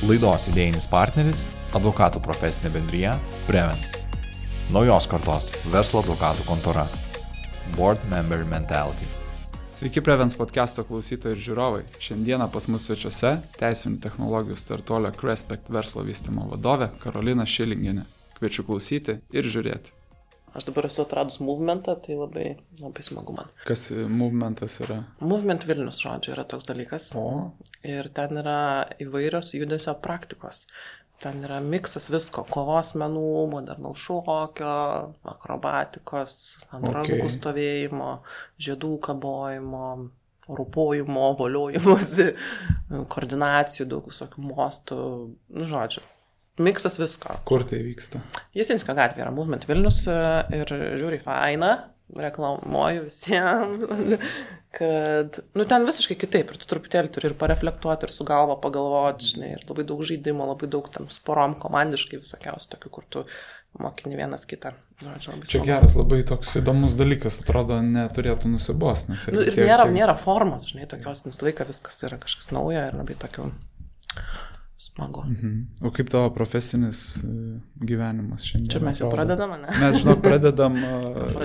Laidos idėjinis partneris – advokatų profesinė bendrija Prevens. Naujos kartos verslo advokatų kontora. Board Member Mentality. Sveiki Prevens podcast'o klausytojai ir žiūrovai. Šiandieną pas mus svečiuose teisinių technologijų startuolio Crespect verslo vystymo vadovė Karolina Šilingienė. Kviečiu klausyti ir žiūrėti. Aš dabar esu atradus movementą, tai labai smagu man. Kas movementas yra? Movement Vilnius, žodžiu, yra toks dalykas. O. Ir ten yra įvairios judesio praktikos. Ten yra miksas visko, kovos menų, modernaus šokio, akrobatikos, ant rankų stovėjimo, žiedų kabojimo, rūpojimo, voliojimosi, koordinacijų, daug visokių mostų, žodžiu. Miksas visko. Kur tai vyksta? Jasinskio gatvė yra Movement Vilnius ir žiūri faina, reklamuoju visiems, kad, ten visiškai kitaip ir tu truputėlį turi ir pareflektuoti, ir su galva pagalvoti, žinai, ir labai daug žaidimo, labai daug tam sporom komandiškai visokiausių tokių, kur tu mokini vienas kitą. Čia geras labai toks įdomus dalykas, atrodo, neturėtų nusibost. Ir nėra formos, žinai, tokios, nes laiką viskas yra kažkas naujo ir labai tokių smagu. O kaip tavo profesinis gyvenimas šiandien? Čia mes jau pradedam, ne? Mes, žinok, pradedam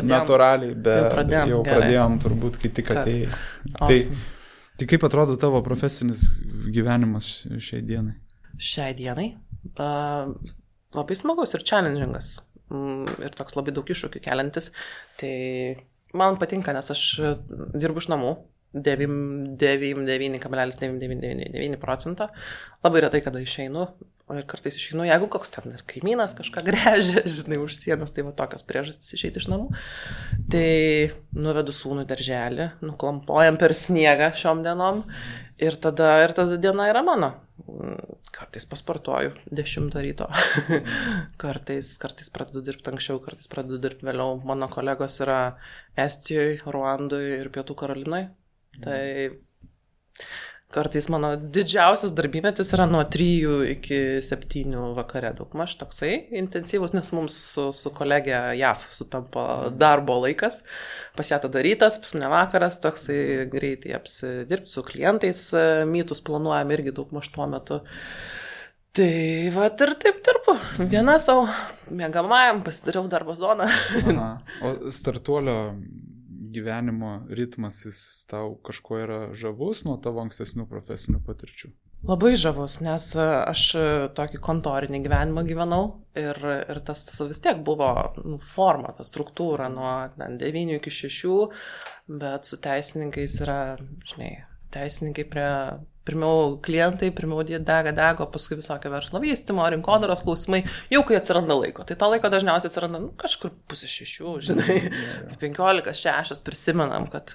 natūraliai, bet jau pradėjom turbūt, kai tik atėjai. Tai kaip atrodo tavo profesinis gyvenimas šiai dienai? Šiai dienai? Labai smagus ir challengingas. Ir toks labai daug iššūkių keliantis. Tai man patinka, nes aš dirbu iš namų. 99,999%. Labai retai, kada išeinu. Ir kartais išeinu, jeigu koks ten ir kaimynas kažką gręžia, žinai, už sienos, tai va tokios priežastys išeiti iš namų. Tai nuvedu sūnų į darželį, nuklampojam per sniegą šiom dienom ir tada diena yra mano. Kartais pasportuoju 10 ryto. kartais pradedu dirbti anksčiau, kartais pradedu dirbti vėliau. Mano kolegos yra Estijoje, Ruandoje ir Pietų Karolinoje. Tai kartais mano didžiausias darbymetis yra nuo 3 iki 7 vakare, daugmaž toksai intensyvus, nes mums su kolegė JAF sutampa darbo laikas, pas ją tada rytas, pas mane vakaras, toksai greitai apsidirbti su klientais, mytus planuojam irgi daugmaž tuo metu. Tai va ir taip dirbu, viena savo mėgamajam pasidariau darbo zoną. O startuolio gyvenimo ritmas, jis tau kažko yra žavus nuo tavo ankstesnių profesinių patirčių? Labai žavus, nes aš tokį kontorinį gyvenimą gyvenau ir tas vis tiek buvo forma, ta struktūra nuo 9 iki 6, bet su teisininkais yra, žinai, teisininkai pirmiau klientai, pirmiau dega, paskui visokio verslo vystymo, rinkodaros klausimai, jau kai atsiranda laiko. Tai to laiko dažniausiai atsiranda kažkur 5:30, žinai, 5:45 prisimenam, kad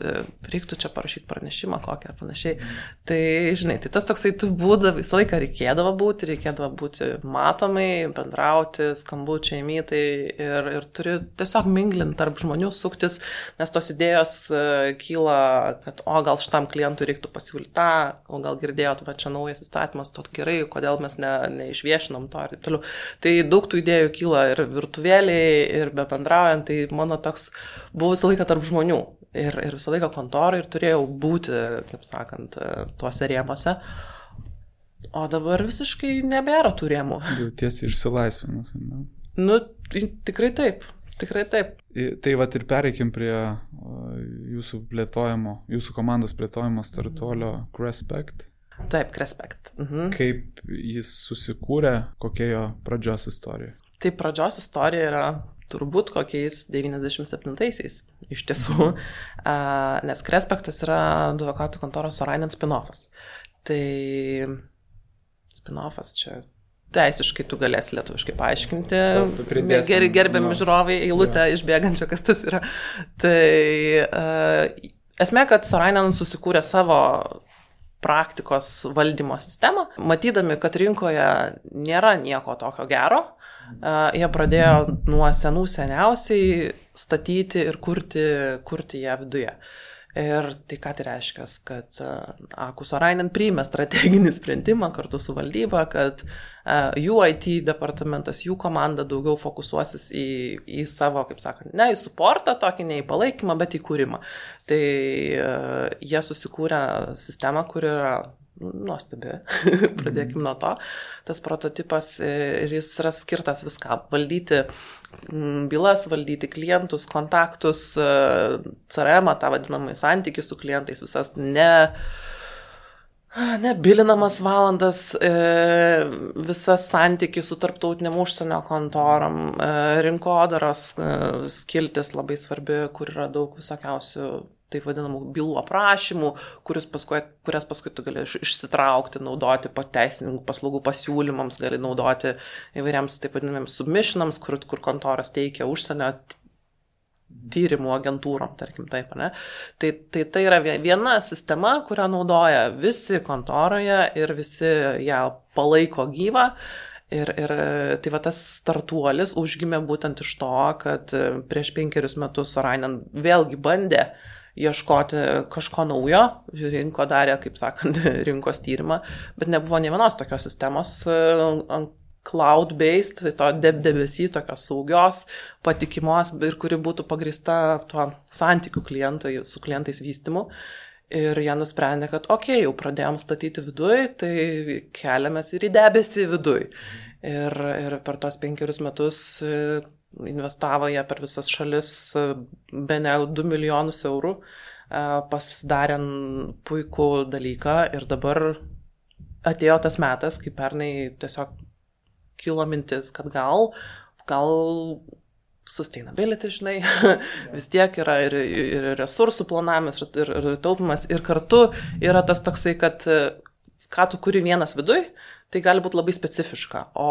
reiktų čia parašyti pranešimą kokį ar panašiai. Tai, žinai, tai tas toksai tu būdavo, visą laiką reikėdavo būti matomai, bendrauti, skambučiai, mytai ir turi tiesiog minglinti tarp žmonių, suktis, nes tos idėjos kyla, kad gal šitam klientui reiktų pasiūlyti tą, o gal girdėjot, va čia naujas įstatymas, tot gerai, kodėl mes neišviešinom to ir taip toliau. Tai daug tų idėjų kyla ir virtuvėliai, ir be bendraujant, tai mano toks buvo visą laiką tarp žmonių ir visą laiką kontorai ir turėjau būti, kaip sakant, tuose rėmuose. O dabar visiškai nebėra tų rėmų. Jautiesi išsilaisvinus, ne? Tikrai taip. Tikrai taip. Tai vat ir pereikim prie jūsų komandos plėtojimo startuolio Crespect. Taip, Crespect. Kaip jis susikūrė, kokia jo pradžios istorija? Tai pradžios istorija yra turbūt kokiais 97-aisiais iš tiesų, nes Crespectas yra advokatų kontoros Sorainen spin-offas. Tai spin-offas čia teisiškai tu galėsi lietuviškai paaiškinti. Gerbiami žiūrovai eilutę išbėgančią, kas tas yra. Tai esmė, kad Sorainen susikūrė savo praktikos valdymo sistemą, matydami, kad rinkoje nėra nieko tokio gero, jie pradėjo nuo seniausiai statyti ir kurti ją viduje. Ir tai ką tai reiškia, kad Aku Sorainen priėmė strateginį sprendimą kartu su valdyba, kad jų IT departamentas, jų komanda daugiau fokusuosis į savo, kaip sakant, ne į suportą, tokį ne į palaikymą, bet į kūrimą. Tai jie susikūrė sistemą, kur yra nuostabi, pradėkime nuo to. Tas prototipas ir jis yra skirtas viskam. Valdyti bylas, valdyti klientus, kontaktus, CRM, tą vadinamą santykį su klientais, visas nebilinamas valandas, visas santykį su tarptautiniam užsienio kontorom, rinkodaros skiltis labai svarbi, kur yra daug visokiausių taip vadinamų bylų aprašymų, kurias paskui tu gali išsitraukti, naudoti teisininkų paslaugų pasiūlymams, gali naudoti įvairiams taip vadinamiems submissionams, kur kontoras teikia užsienio tyrimų agentūrom, tarkim taip, ne? Tai yra viena sistema, kurią naudoja visi kontoroje ir visi ją palaiko gyvą. Ir tai va tas startuolis užgimė būtent iš to, kad prieš 5 metus Sorainen vėlgi bandė ieškoti kažko naujo, rinko darė, kaip sakant, rinkos tyrimą, bet nebuvo nė vienos tokios sistemos cloud-based, to debesy, tokios saugios, patikimos ir kuri būtų pagrįsta tuo santykių su klientais vystymu. Ir jie nusprendė, kad jau pradėjom statyti viduj, tai keliamės ir į debesį viduj. Ir per tos 5 metus investavo jie per visas šalis bene 2 milijonus eurų, pasidarė puikų dalyką ir dabar atėjo tas metas, kai pernai tiesiog kilo mintis, kad gal sustainability, žinai, vis tiek yra ir resursų planavimas, ir taupimas, ir kartu yra tas toksai, kad ką tu kuri vienas viduj, tai gali būti labai specifiška, o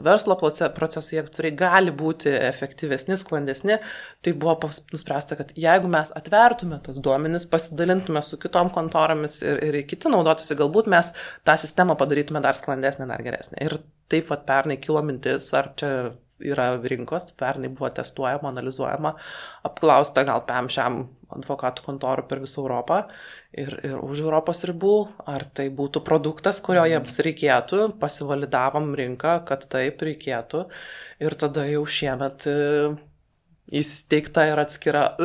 verslo procesai, jie gali būti efektyvesni, sklandesni, tai buvo nuspręsta, kad jeigu mes atvertume tas duomenis, pasidalintume su kitom kontoromis ir kiti naudotųsi, galbūt mes tą sistemą padarytume dar sklandesnę, dar geresnę. Ir taip pat pernai kilo mintis, ar čia yra rinkos, pernai buvo testuojama, analizuojama, apklausta gal šiam advokatų kontorų per visą Europą ir už Europos ribų, ar tai būtų produktas, kurio jiems reikėtų, pasivalidavom rinką, kad taip reikėtų ir tada jau šiemet įsteigta ir atskira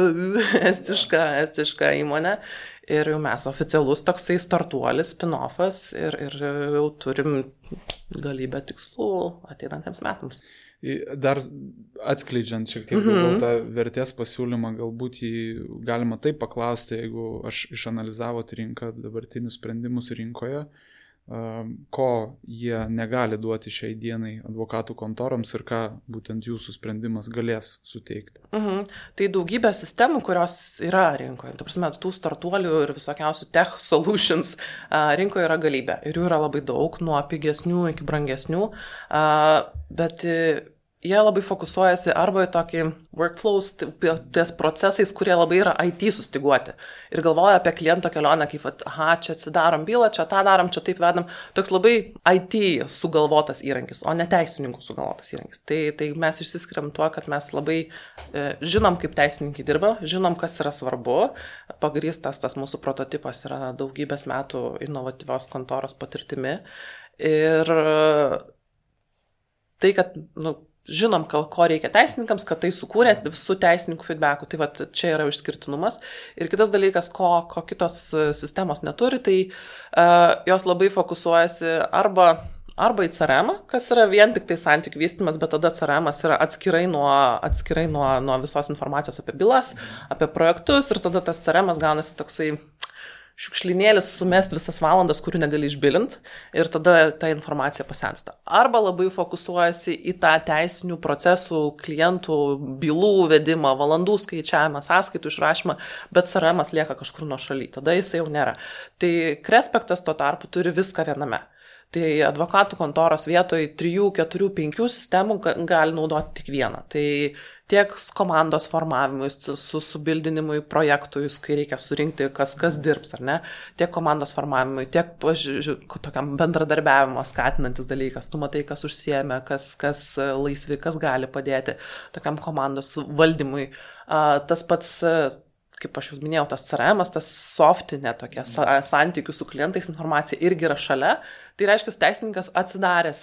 estiška įmonė ir jau mes oficialus toksai startuolis, spin-offas ir jau turim galybę tikslų ateinantiems metams. Dar atskleidžiant šiek tiek tą vertės pasiūlymą, galbūt jį galima taip paklausti, jeigu aš išanalizavot rinką, dabartinius sprendimus rinkoje, ko jie negali duoti šiai dienai advokatų kontoroms ir ką būtent jūsų sprendimas galės suteikti. Tai daugybė sistemų, kurios yra rinkoje. Ta prasme, tų startuolių ir visokiausių tech solutions rinkoje yra galybė. Ir jų yra labai daug, nuo pigesnių iki brangesnių, bet jie labai fokusuojasi arba į tokį workflows, ties procesais, kurie labai yra IT sustiguoti. Ir galvoja apie kliento kelionę, kaip, čia atsidarom bylą, čia tą darom, čia taip vedam. Toks labai IT sugalvotas įrankis, o ne teisininkų sugalvotas įrankis. Tai mes išsiskiriam tuo, kad mes labai žinom, kaip teisininkai dirba, žinom, kas yra svarbu. Pagrįstas tas mūsų prototipas yra daugybės metų inovatyvios kontoros patirtimi. Ir tai, kad, žinom, ko reikia teisininkams, kad tai sukūrė visų teisininkų feedbackų. Tai čia yra išskirtinumas. Ir kitas dalykas, ko kitos sistemos neturi, tai jos labai fokusuojasi arba į CRM, kas yra vien tik tai santykių vystymas, bet tada CRM yra atskirai nuo visos informacijos apie bylas, apie projektus ir tada tas CRM gaunasi toksai šiukšlinėlis sumest visas valandas, kurių negali išbilint ir tada ta informacija pasensta. Arba labai fokusuojasi į tą teisinių procesų, klientų, bylų vedimą, valandų skaičiavimą, sąskaitų išrašymą, bet CRM lieka kažkur nuo šaly, tada jis jau nėra. Tai Crespektas tuo tarpu turi viską viename. Tai advokatų kontoros vietoj 3, 4, 5 sistemų gali naudoti tik vieną. Tai tiek komandos formavimui, subildinimui projektui, kai reikia surinkti, kas dirbs, ar ne, tiek komandos formavimui, tiek tokiam bendradarbiavimo skatinantis dalykas. Tu matai, kas užsiėmė, kas laisvi, kas gali padėti tokiam komandos valdymui. Tas pats kaip aš jūs minėjau, tas CRM, tas softinė tokia santykių su klientais informacija irgi yra šalia. Tai reiškia, teisininkas atsidaręs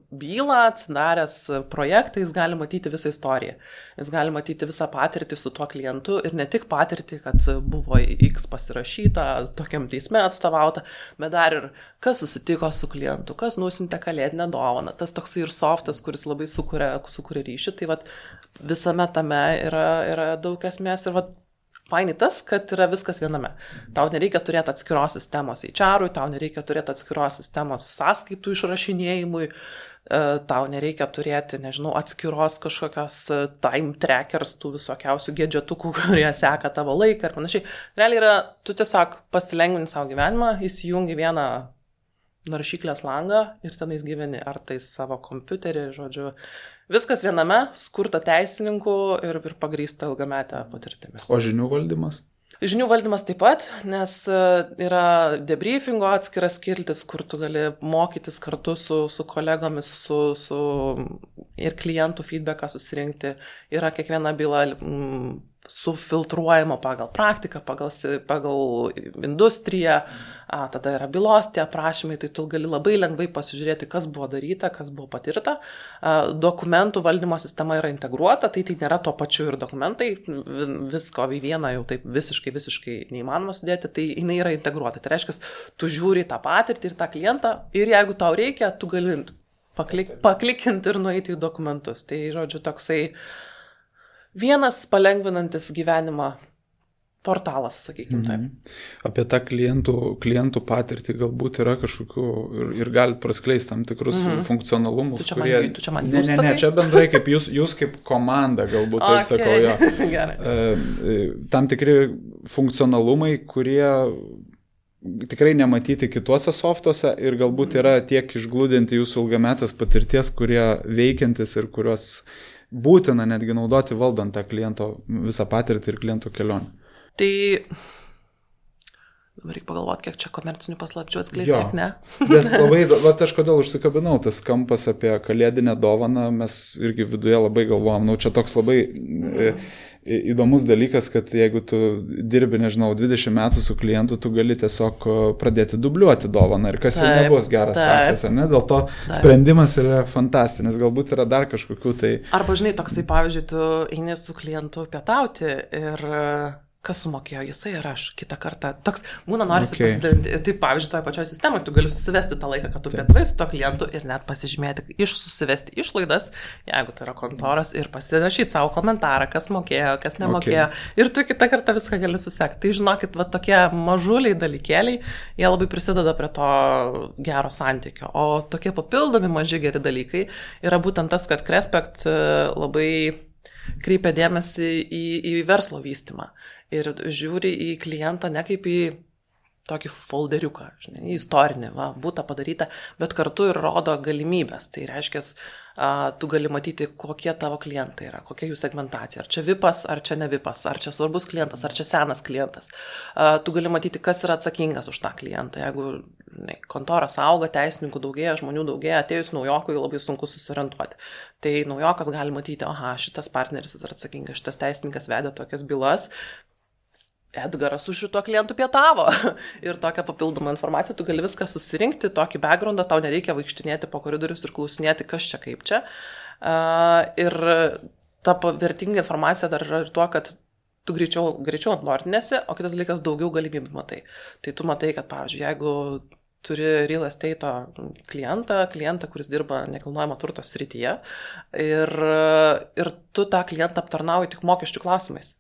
bylą, atsidaręs projektą, jis gali matyti visą istoriją. Jis gali matyti visą patirtį su tuo klientu ir ne tik patirtį, kad buvo X pasirašyta, tokiam teisme atstovauta, bet dar ir kas susitiko su klientu, kas nusintė kalėdinę dovaną. Tas toksai ir softas, kuris labai sukuria ryšį. Tai vat, visame tame yra daug esmės ir vat, fainai tas, kad yra viskas viename. Tau nereikia turėti atskiros sistemos HR-ui, tau nereikia turėti atskiros sistemos sąskaitų išrašinėjimui, tau nereikia turėti, nežinau, atskiros kažkokios time trackers, tų visokiausių gadgetukų, kurie seka tavo laiką ir panašiai. Realiai yra, tu tiesiog pasilengvini savo gyvenimą, įsijungi vieną naršyklės langą ir tenais gyveni, ar tai savo kompiuterį, žodžiu. Viskas viename, skurta teisininkų ir pagrįsta ilgametę patirtimį. O žinių valdymas? Žinių valdymas taip pat, nes yra debriefingo atskiras skiltis, kur tu gali mokytis kartu su kolegomis, su ir klientų feedbacką susirinkti. Yra kiekviena byla sufiltruojama pagal praktiką, pagal industriją, tada yra bylos tie aprašymai, tai tu gali labai lengvai pasižiūrėti, kas buvo daryta, kas buvo patirta. Dokumentų valdymo sistema yra integruota, tai nėra tuo pačiu ir dokumentai, visko į vieną jau taip visiškai neįmanoma sudėti, tai jinai yra integruota. Tai reiškia, tu žiūri tą patirtį ir tą klientą ir jeigu tau reikia, tu gali paklikinti ir nueiti į dokumentus. Tai, žodžiu, toksai vienas palengvinantis gyvenimą portalas, sakykime taip. Apie tą klientų patirtį galbūt yra kažkokių ir galite praskleisti tam tikrus funkcionalumus, kurie... Ne, čia bendrai kaip jūs kaip komanda, galbūt taip sakau, jo. Tam tikri funkcionalumai, kurie tikrai nematyti kituose softuose ir galbūt yra tiek išglūdinti jūsų ilgametės patirties, kurie veikiantis ir kurios būtina netgi naudoti valdant tą kliento visą patirtį ir kliento kelionę. Tai dabar reikia pagalvoti, kiek čia komercinių paslapčių atskleisti, kiek ne. Nes labai, aš kodėl užsikabinau, tas kampas apie kalėdinę dovaną, mes irgi viduje labai galvojam, čia toks labai įdomus dalykas, kad jeigu tu dirbi, nežinau, 20 metų su klientu, tu gali tiesiog pradėti dubliuoti dovaną ir kas jau nebus geras startas, ar ne? Dėl to sprendimas yra fantastinis, galbūt yra dar kažkokių tai... Arba, žinai, toksai, pavyzdžiui, tu eini su klientu pietauti ir kas sumokėjo, jisai ir aš kitą kartą. Toks būna norisi pasidalinti. Tai, pavyzdžiui, toje pačioje sistemoje tu gali susivesti tą laiką, kad tu pietavai su to klientu ir net pasižymėti, susivesti išlaidas, jeigu tai yra kontoras, ir pasirašyti savo komentarą, kas mokėjo, kas nemokėjo. Ir tu kitą kartą viską gali susekti. Tai žinokit, va tokie mažuliai dalykėliai, jie labai prisideda prie to gero santykio. O tokie papildomi maži geri dalykai yra būtent tas, kad Crespect labai kreipia dėmesį į verslo vystymą ir žiūri į klientą ne kaip į tokį folderiuką, žinai, istorinį, būta padaryta, bet kartu ir rodo galimybės. Tai reiškia, tu gali matyti, kokie tavo klientai yra, kokia jų segmentacija. Ar čia VIPas, ar čia ne VIPas, ar čia svarbus klientas, ar čia senas klientas. Tu gali matyti, kas yra atsakingas už tą klientą. Jeigu kontoras auga, teisininkų daugėja, žmonių daugėja, atėjus naujokui labai sunku susiorientuoti. Tai naujokas gali matyti, šitas partneris yra atsakingas, šitas teisininkas vedė tokias bylas, Edgaras su šituo klientu pietavo. Ir tokią papildomą informaciją, tu gali viską susirinkti, tokį backgroundą, tau nereikia vaikštinėti po koridorius ir klausinėti, kas čia kaip čia. Ir ta vertinga informacija dar yra ir tuo, kad tu greičiau onboardinėsi, o kitas dalykas daugiau galimybių matai. Tai tu matai, kad, pavyzdžiui, jeigu turi real estate klientą, kuris dirba nekilnojamo turto srityje, ir tu tą klientą aptarnauji tik mokesčių klausimais.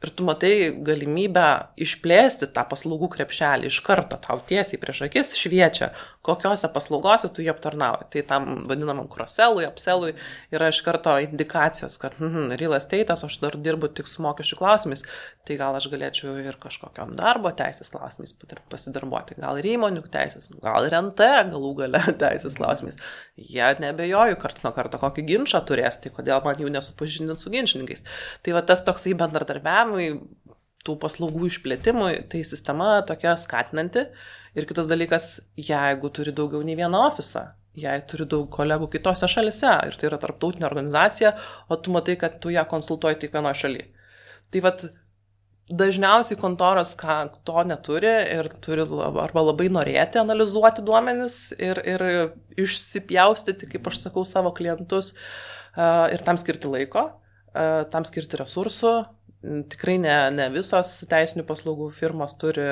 Ir tu matai galimybę išplėsti tą paslaugų krepšelį iš karto, tau tiesiai prieš akis šviečia, kokiose paslaugose tu jį aptarnauji. Tai tam vadinamam cross-sellui, upsellui yra iš karto indikacijos, kad real estate'as, aš dar dirbu tik su mokesčių klausimais, tai gal aš galėčiau ir kažkokiam darbo teisės klausimais pasidarbuoti, gal ir įmonių teisės, gal ir NT galų gale teisės klausimais. Jie nebejoju, karts nuo karto kokį ginčą turės, tai kodėl man jų nesupažindint su ginčininkais. Tai va tas toksai bendradarbiavimui, tų paslaugų išplėtimui, tai sistema tokia skatinanti. Ir kitas dalykas, jeigu turi daugiau nei vieną ofisą, jei turi daug kolegų kitose šalise, ir tai yra tarptautinė organizacija, o tu matai, kad tu ją konsultuoji tik vienoje šalyje. Tai vat dažniausiai kontoros to neturi ir turi arba labai norėti analizuoti duomenis ir išsipjaustyti, kaip aš sakau, savo klientus ir tam skirti laiko, tam skirti resursų. Tikrai ne visos teisinių paslaugų firmos turi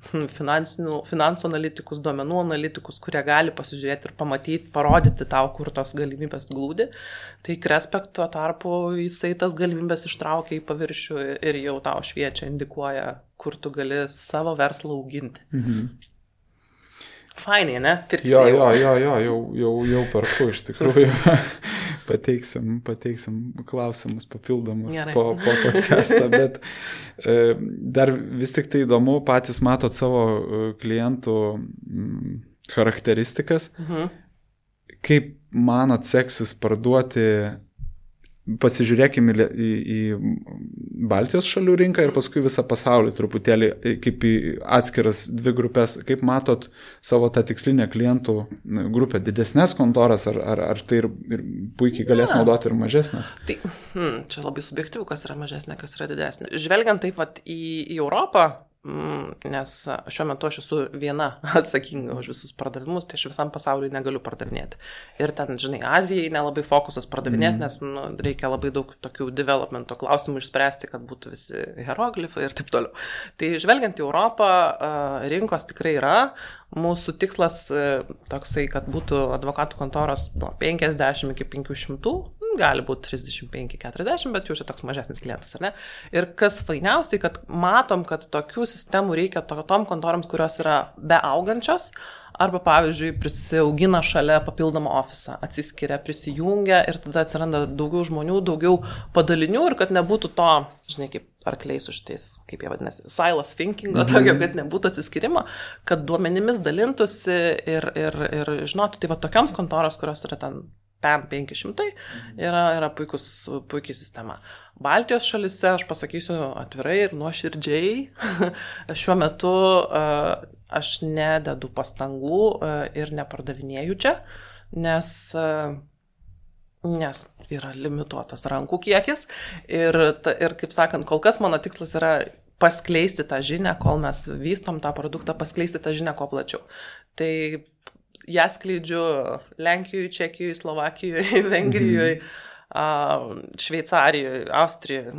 finansų analitikus, duomenų analitikus, kurie gali pasižiūrėti ir pamatyti, parodyti tau, kur tos galimybės glūdi. Tai Crespect tuo tarpu jisai tas galimybės ištraukia į paviršių ir jau tau šviečia, indikuoja, kur tu gali savo verslą auginti. Fainai, ne? Jau perku iš tikrųjų. Pateiksim klausimus papildomus po podcastą, bet dar vis tik tai įdomu, patys matot savo klientų charakteristikas. Kaip manot seksis parduoti, pasižiūrėkime į Baltijos šalių rinką ir paskui visą pasaulį truputėlį kaip į atskiras dvi grupės. Kaip matot savo tą tikslinę klientų grupę, didesnės kontoras ar tai ir puikiai galės naudoti ir mažesnės? Tai, čia labai subjektyvu, kas yra mažesnė, kas yra didesnė. Žvelgiant taip vat į Europą, nes šiuo metu aš esu viena atsakinga už visus pardavimus, tai aš visam pasauliui negaliu pardavinėti. Ir ten, žinai, Azijai nelabai fokusas pardavinėti, nes reikia labai daug tokių developmento klausimų išspręsti, kad būtų visi hieroglifai ir taip toliau. Tai žvelgiant į Europą, rinkos tikrai yra. Mūsų tikslas toksai, kad būtų advokatų kontoros nuo 50 iki 500, gali būti 35-40, bet jau čia toks mažesnis klientas, ar ne? Ir kas fainiausiai, kad matom, kad tokių sistemų reikia tom kontorams, kurios yra beaugančios, arba, pavyzdžiui, prisiaugina šalia papildomą ofisą, atsiskiria, prisijungia ir tada atsiranda daugiau žmonių, daugiau padalinių ir kad nebūtų to, žinai, kaip arkliai su šitais, kaip jie vadinasi, silos thinking, tokio, kad nebūtų atsiskirimo, kad duomenimis dalintųsi ir žinotų, tai va tokioms kontoros, kurios yra ten PAM 500, yra puikiai sistema. Baltijos šalise, aš pasakysiu atvirai ir nuoširdžiai, šiuo metu aš nededu pastangų ir nepardavinėju čia, nes yra limituotas rankų kiekis ir kaip sakant, kol kas mano tikslas yra paskleisti tą žinią, kol mes vystom tą produktą, paskleisti tą žinią kuo plačiau. Tai ją skleidžiu Lenkijoje, Čekijoje, Slovakijoje, Vengrijoje, Šveicarijoje, Austrijoje,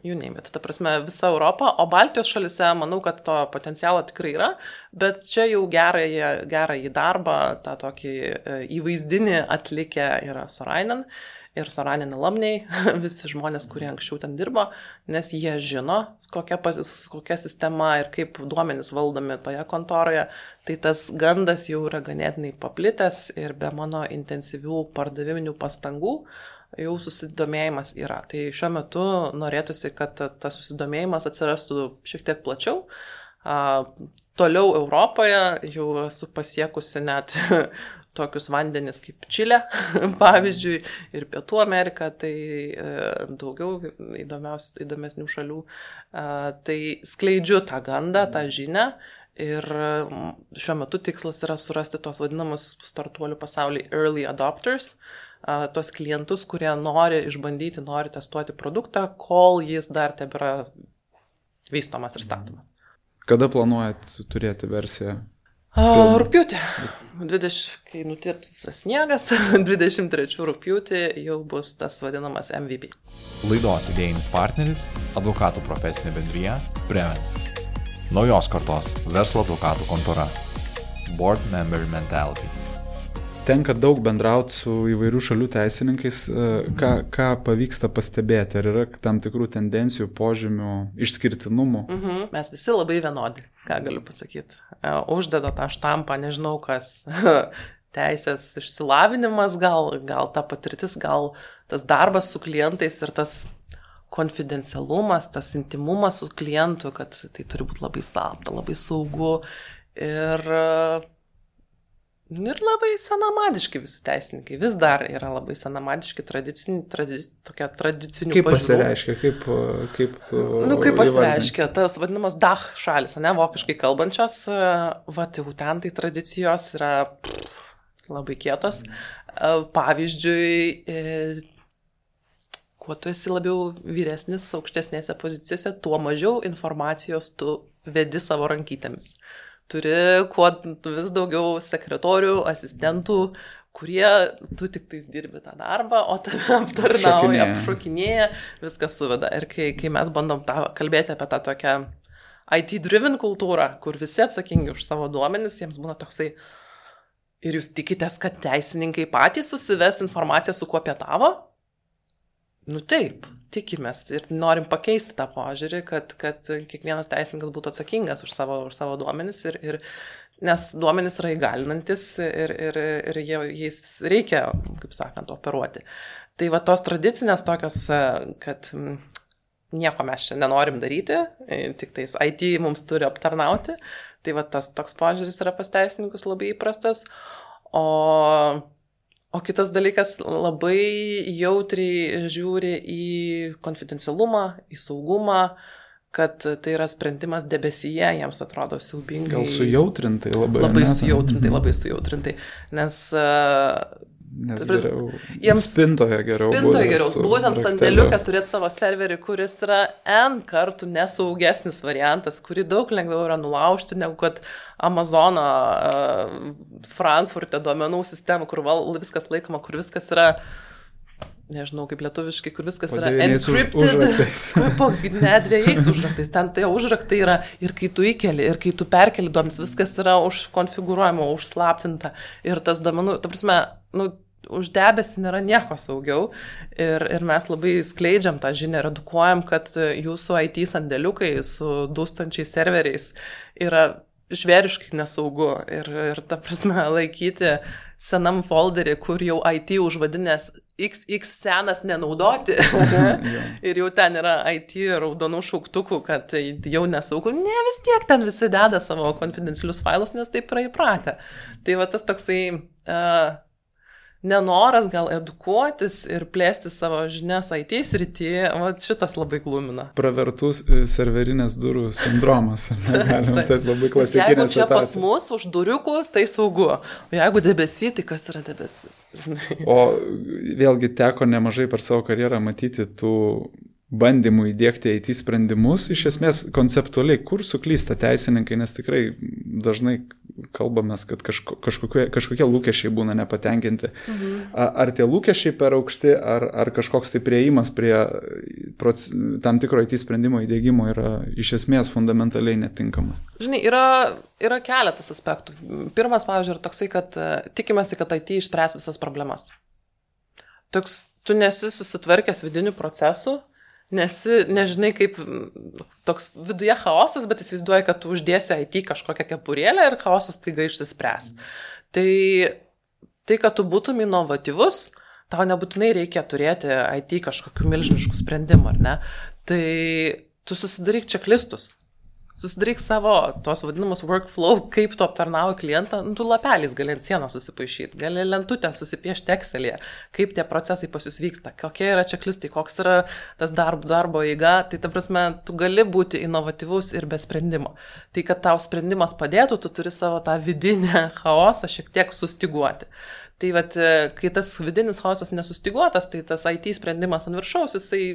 you name it. Ta prasme, visa Europa, o Baltijos šalise manau, kad to potencialo tikrai yra, bet čia jau gerąjį darbą, tą tokį įvaizdinį atlikę yra Sorainen ir Sorainen alumniai, visi žmonės, kurie anksčiau ten dirbo, nes jie žino, kokia sistema ir kaip duomenys valdomi toje kontoroje, tai tas gandas jau yra ganėtinai paplitęs ir be mano intensyvių pardaviminių pastangų jau susidomėjimas yra. Tai šiuo metu norėtųsi, kad tas susidomėjimas atsirastų šiek tiek plačiau. Toliau Europoje jau esu pasiekusi net tokius vandenis kaip Čilė, pavyzdžiui, ir Pietų Amerika, tai daugiau įdomesnių šalių. Tai skleidžiu tą gandą, tą žinią ir šiuo metu tikslas yra surasti tos vadinamus startuolių pasaulyje early adopters, tos klientus, kurie nori išbandyti, nori testuoti produktą, kol jis dar tebėra vystomas ir statomas. Kada planuojat turėti versiją? Rugpjūtį. Kai nutirps visas sniegas, 23 rugpjūtį jau bus tas vadinamas MVP. Laidos idėjinis partneris – advokatų profesinė bendrija Prevens. Naujos kartos verslo advokatų kontora. Board Member Mentality. Tenka daug bendrauti su įvairių šalių teisininkais. Ką pavyksta pastebėti? Ar yra tam tikrų tendencijų, požymių, išskirtinumų? Mes visi labai vienodi, ką galiu pasakyti. Uždeda tą štampą, nežinau kas, teisės išsilavinimas, gal ta patirtis, gal tas darbas su klientais ir tas konfidencialumas, tas intimumas su klientu, kad tai turi būti labai slapta, labai saugu ir labai senamadiški visi teisininkai. Vis dar yra labai senamadiški, tradicinių pažiūrų. Kaip pasireiškia? Kaip pasireiškia? Tas vadinamas DACH šalis, vokiškai kalbančios, jau ten tai tradicijos yra labai kietos. Pavyzdžiui, kuo tu esi labiau vyresnis, aukštesnėse pozicijose, tuo mažiau informacijos tu vedi savo rankytėmis. Turi kuo vis daugiau sekretorių, asistentų, kurie tu tik tais dirbi tą darbą, o tave aptarnauja, apšokinėja, viskas suveda. Ir kai mes bandom kalbėti apie tą tokią IT-driven kultūrą, kur visi atsakingi už savo duomenis, jiems būna toksai, ir jūs tikitės, kad teisininkai patys susives informaciją, su kuo pietavo? Nu taip, tikimės ir norim pakeisti tą požiūrį, kad kiekvienas teisininkas būtų atsakingas už savo duomenis, nes duomenis yra įgalinantis ir jais reikia, kaip sakant, operuoti. Tai va tos tradicinės tokios, kad nieko mes čia nenorim daryti, tik tais IT mums turi aptarnauti, tai va tas toks požiūris yra pas teisininkus labai įprastas, o kitas dalykas labai jautriai žiūri į konfidencialumą, į saugumą, kad tai yra sprendimas debesyje, jiems atrodo siaubingai. Gal sujautrintai labai. Labai sujautrintai, nes geriau, spintoje geriau. Būtent sandėliuką turėti savo serverį, kuris yra N kartų nesaugesnis variantas, kurį daug lengviau yra nulaužti, negu kad Amazono Frankfurte duomenų sistema, kur viskas laikoma, kur viskas yra, nežinau kaip lietuviškai, kur viskas yra encrypted, po ne 2 užraktais. Ten tai užraktai yra ir kai tu įkeli, ir kai tu perkeli duomenis, viskas yra užkonfigūruojama, užslaptinta. Ir tas duomenų, ta prasme, už debesį nėra nieko saugiau. Ir mes labai skleidžiam tą žinią ir edukuojam, kad jūsų IT sandėliukai su dūstančiais serveriais yra žvėriškai nesaugu. Ir ta prasme, laikyti senam folderį, kur jau IT užvadinės XX senas nenaudoti ir jau ten yra IT raudonų šauktukų, kad jau nesaugu. Ne, vis tiek ten visi deda savo konfidencialius failus, nes taip yra įpratę. Tai va tas toksai nenoras gal edukuotis ir plėsti savo žinias IT srityje, šitas labai glumina. Pravertus serverinės durų sindromas. Galima, tai labai klasikinė jeigu čia situacija. Pas mus už duriukų, tai saugu. O jeigu debesy, tai kas yra debesis? O vėlgi teko nemažai per savo karjerą matyti tų bandymų įdėkti IT sprendimus, iš esmės konceptualiai, kur suklysta teisininkai, nes tikrai dažnai kalbamės, kad kažkokie lūkesčiai būna nepatenkinti. Ar tie lūkesčiai per aukšti, ar kažkoks tai priėjimas prie tam tikro IT sprendimo įdėgymo yra iš esmės fundamentaliai netinkamas? Žinai, yra keletas aspektų. Pirmas, pavyzdžiui, yra toksai, kad tikimasi, kad IT išspręs visas problemas. Tu nesi susitvarkęs vidinių procesų, nežinai kaip toks viduje chaosas, bet įsivaizduoji, kad tu uždėsi IT kažkokią kepurėlę ir chaosas taiga išsispręs. Tai, kad tu būtum inovatyvus, tau nebūtinai reikia turėti IT kažkokių milžiniškų sprendimų, ar ne? Tai tu susidaryk čeklistus. Susidaryk savo tos vadinamus workflow, kaip tu aptarnauji klientą, tu lapeliais gali ant sienos susipaišyti, gali lentutę susipiešti Excel'e, kaip tie procesai pas jūs vyksta, kokie yra čeklistai, koks yra tas darbo eiga, tai ta prasme, tu gali būti inovatyvus ir be sprendimo. Tai, kad tau sprendimas padėtų, tu turi savo tą vidinę chaosą šiek tiek sustiguoti. Tai vat, kai tas vidinis chaosas nesustiguotas, tai tas IT sprendimas ant viršaus, jisai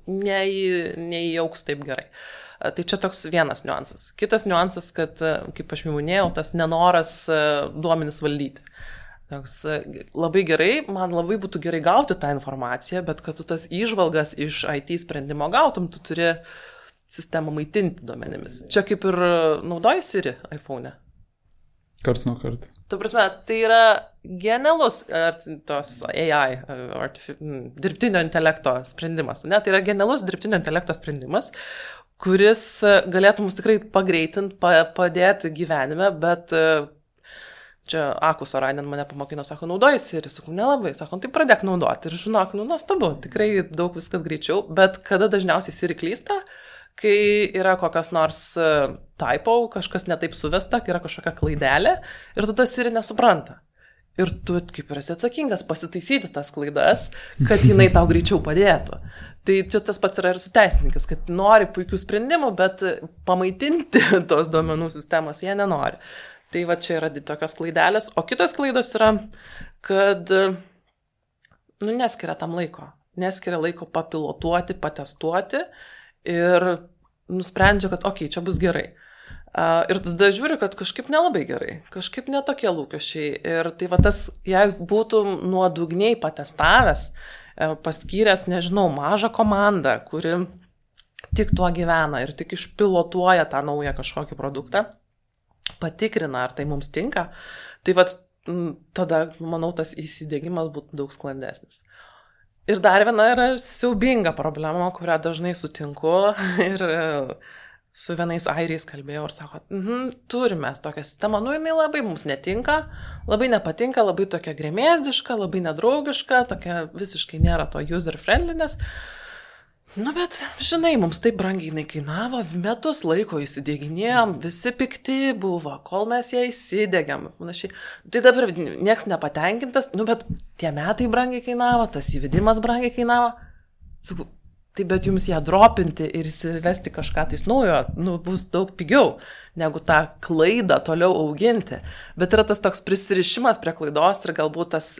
neįauks taip gerai. Tai čia toks vienas niuansas. Kitas niuansas, kad, kaip aš minėjau, tas nenoras duomenis valdyti. Toks, labai gerai, man labai būtų gerai gauti tą informaciją, bet kad tu tas įžvalgas iš IT sprendimo gautum, tu turi sistemą maitinti duomenimis. Čia kaip ir naudoji Siri iPhone'e. Karts nuo karto. Tu prasme, tai yra genialus tos AI, dirbtinio intelekto sprendimas. Ne? Tai yra genialus dirbtinio intelekto sprendimas, kuris galėtų mus tikrai pagreitinti, padėti gyvenime, bet čia Akus Orainen mane pamokino, sako, naudoji Siri, sakau, nelabai, sako, tai pradėk naudoti ir žinok, nuostabu, tikrai daug viskas greičiau, bet kada dažniausiai Siri klysta, kai yra kokios nors typo, kažkas netaip suvesta, kai yra kažkokia klaidelė ir tu tas Siri nesupranta. Ir tu kaip ir esi atsakingas pasitaisyti tas klaidas, kad jinai tau greičiau padėtų. Tai čia tas pats yra ir su teisininkas, kad nori puikių sprendimų, bet pamaitinti tos duomenų sistemos jie nenori. Tai va čia yra tokios klaidelės. O kitos klaidos yra, kad neskiria tam laiko. neskiria laiko papilotuoti, patestuoti ir nusprendžia, kad čia bus gerai. Ir tada žiūri, kad kažkaip nelabai gerai, kažkaip netokie lūkesčiai. Ir tai va tas, jeigu būtų nuodugniai patestavęs, paskyręs, nežinau, mažą komandą, kuri tik tuo gyvena ir tik išpilotuoja tą naują kažkokį produktą, patikrina, ar tai mums tinka, tai va tada, manau, tas įsidiegimas būtų daug sklandesnis. Ir dar viena yra siaubinga problema, kurią dažnai sutinku ir su vienais airiais kalbėjau ir sako, turime tokią sistemą, jinai labai mums netinka, labai nepatinka, labai tokia gremėzdiška, labai nedraugiška, tokia visiškai nėra to user friendliness. Bet, žinai, mums taip brangiai jinai kainavo, metus laiko įsidėginėjom, visi pikti buvo, kol mes ją įsidėgiam. Tai dabar nieks nepatenkintas, bet tie metai brangiai kainavo, tas įvedimas brangiai kainavo. Sakau, tai bet jums ją dropinti ir įsivesti kažką tais naujo, bus daug pigiau, negu tą klaidą toliau auginti. Bet yra tas toks prisirišimas prie klaidos ir galbūt tas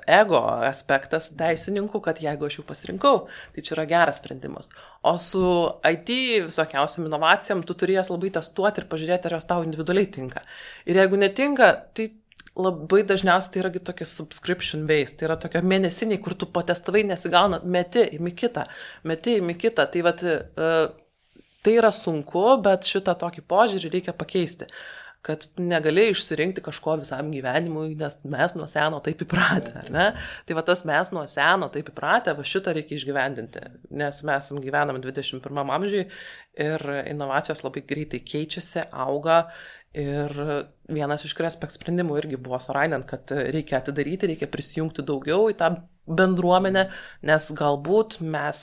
ego aspektas teisininkų, kad jeigu aš jau pasirinkau, tai čia yra geras sprendimas. O su IT visokiausiam inovacijom tu turėjęs labai testuoti ir pažiūrėti, ar jos tau individualiai tinka. Ir jeigu netinka, tai labai dažniausiai tai yra tokia subscription based, tai yra tokia mėnesiniai, kur tu patestavai nesigauna, meti imi kitą. Tai vat, tai yra sunku, bet šitą tokį požiūrį reikia pakeisti, kad negali išsirinkti kažko visam gyvenimui, nes mes nuo seno taip įpratę, ar ne? Tai va tas mes nuo seno taip įpratę, va šitą reikia išgyvendinti, nes mes gyvename 21 amžiui ir inovacijos labai greitai keičiasi, auga. Ir vienas iš Crespect sprendimų irgi buvo surainant, kad reikia atidaryti, reikia prisijungti daugiau į tą bendruomenę, nes galbūt mes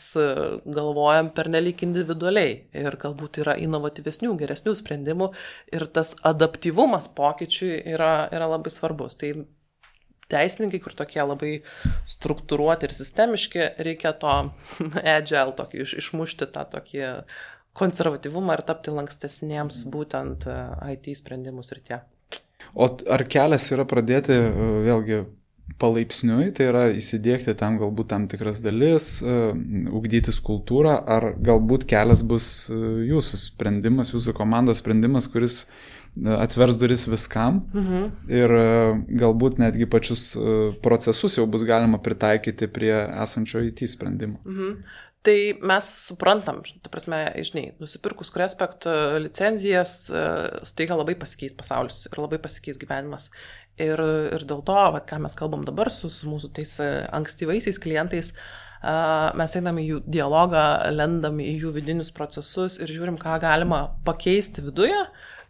galvojam pernelyg individualiai ir galbūt yra inovatyvesnių, geresnių sprendimų ir tas adaptyvumas pokyčiui yra labai svarbus. Tai teisininkai, kur tokie labai struktūruoti ir sistemiški, reikia to agile tokį, išmušti tą tokį konservatyvumą ir tapti lankstesniems būtent IT sprendimus ir tie. O ar kelias yra pradėti vėlgi palaipsniui, tai yra įsidėkti tam galbūt tam tikras dalis, ugdytis kultūrą, ar galbūt kelias bus jūsų sprendimas, jūsų komandos sprendimas, kuris atvers duris viskam ir galbūt netgi pačius procesus jau bus galima pritaikyti prie esančio IT sprendimo. Tai mes suprantam, ta prasme, žinai, nusipirkus Crespect licenzijas, staiga labai pasikeis pasaulis ir labai pasikeis gyvenimas. Ir dėl to, ką mes kalbam dabar su mūsų tais ankstyvaisiais klientais, mes einam į jų dialogą, lendam į jų vidinius procesus ir žiūrim, ką galima pakeisti viduje,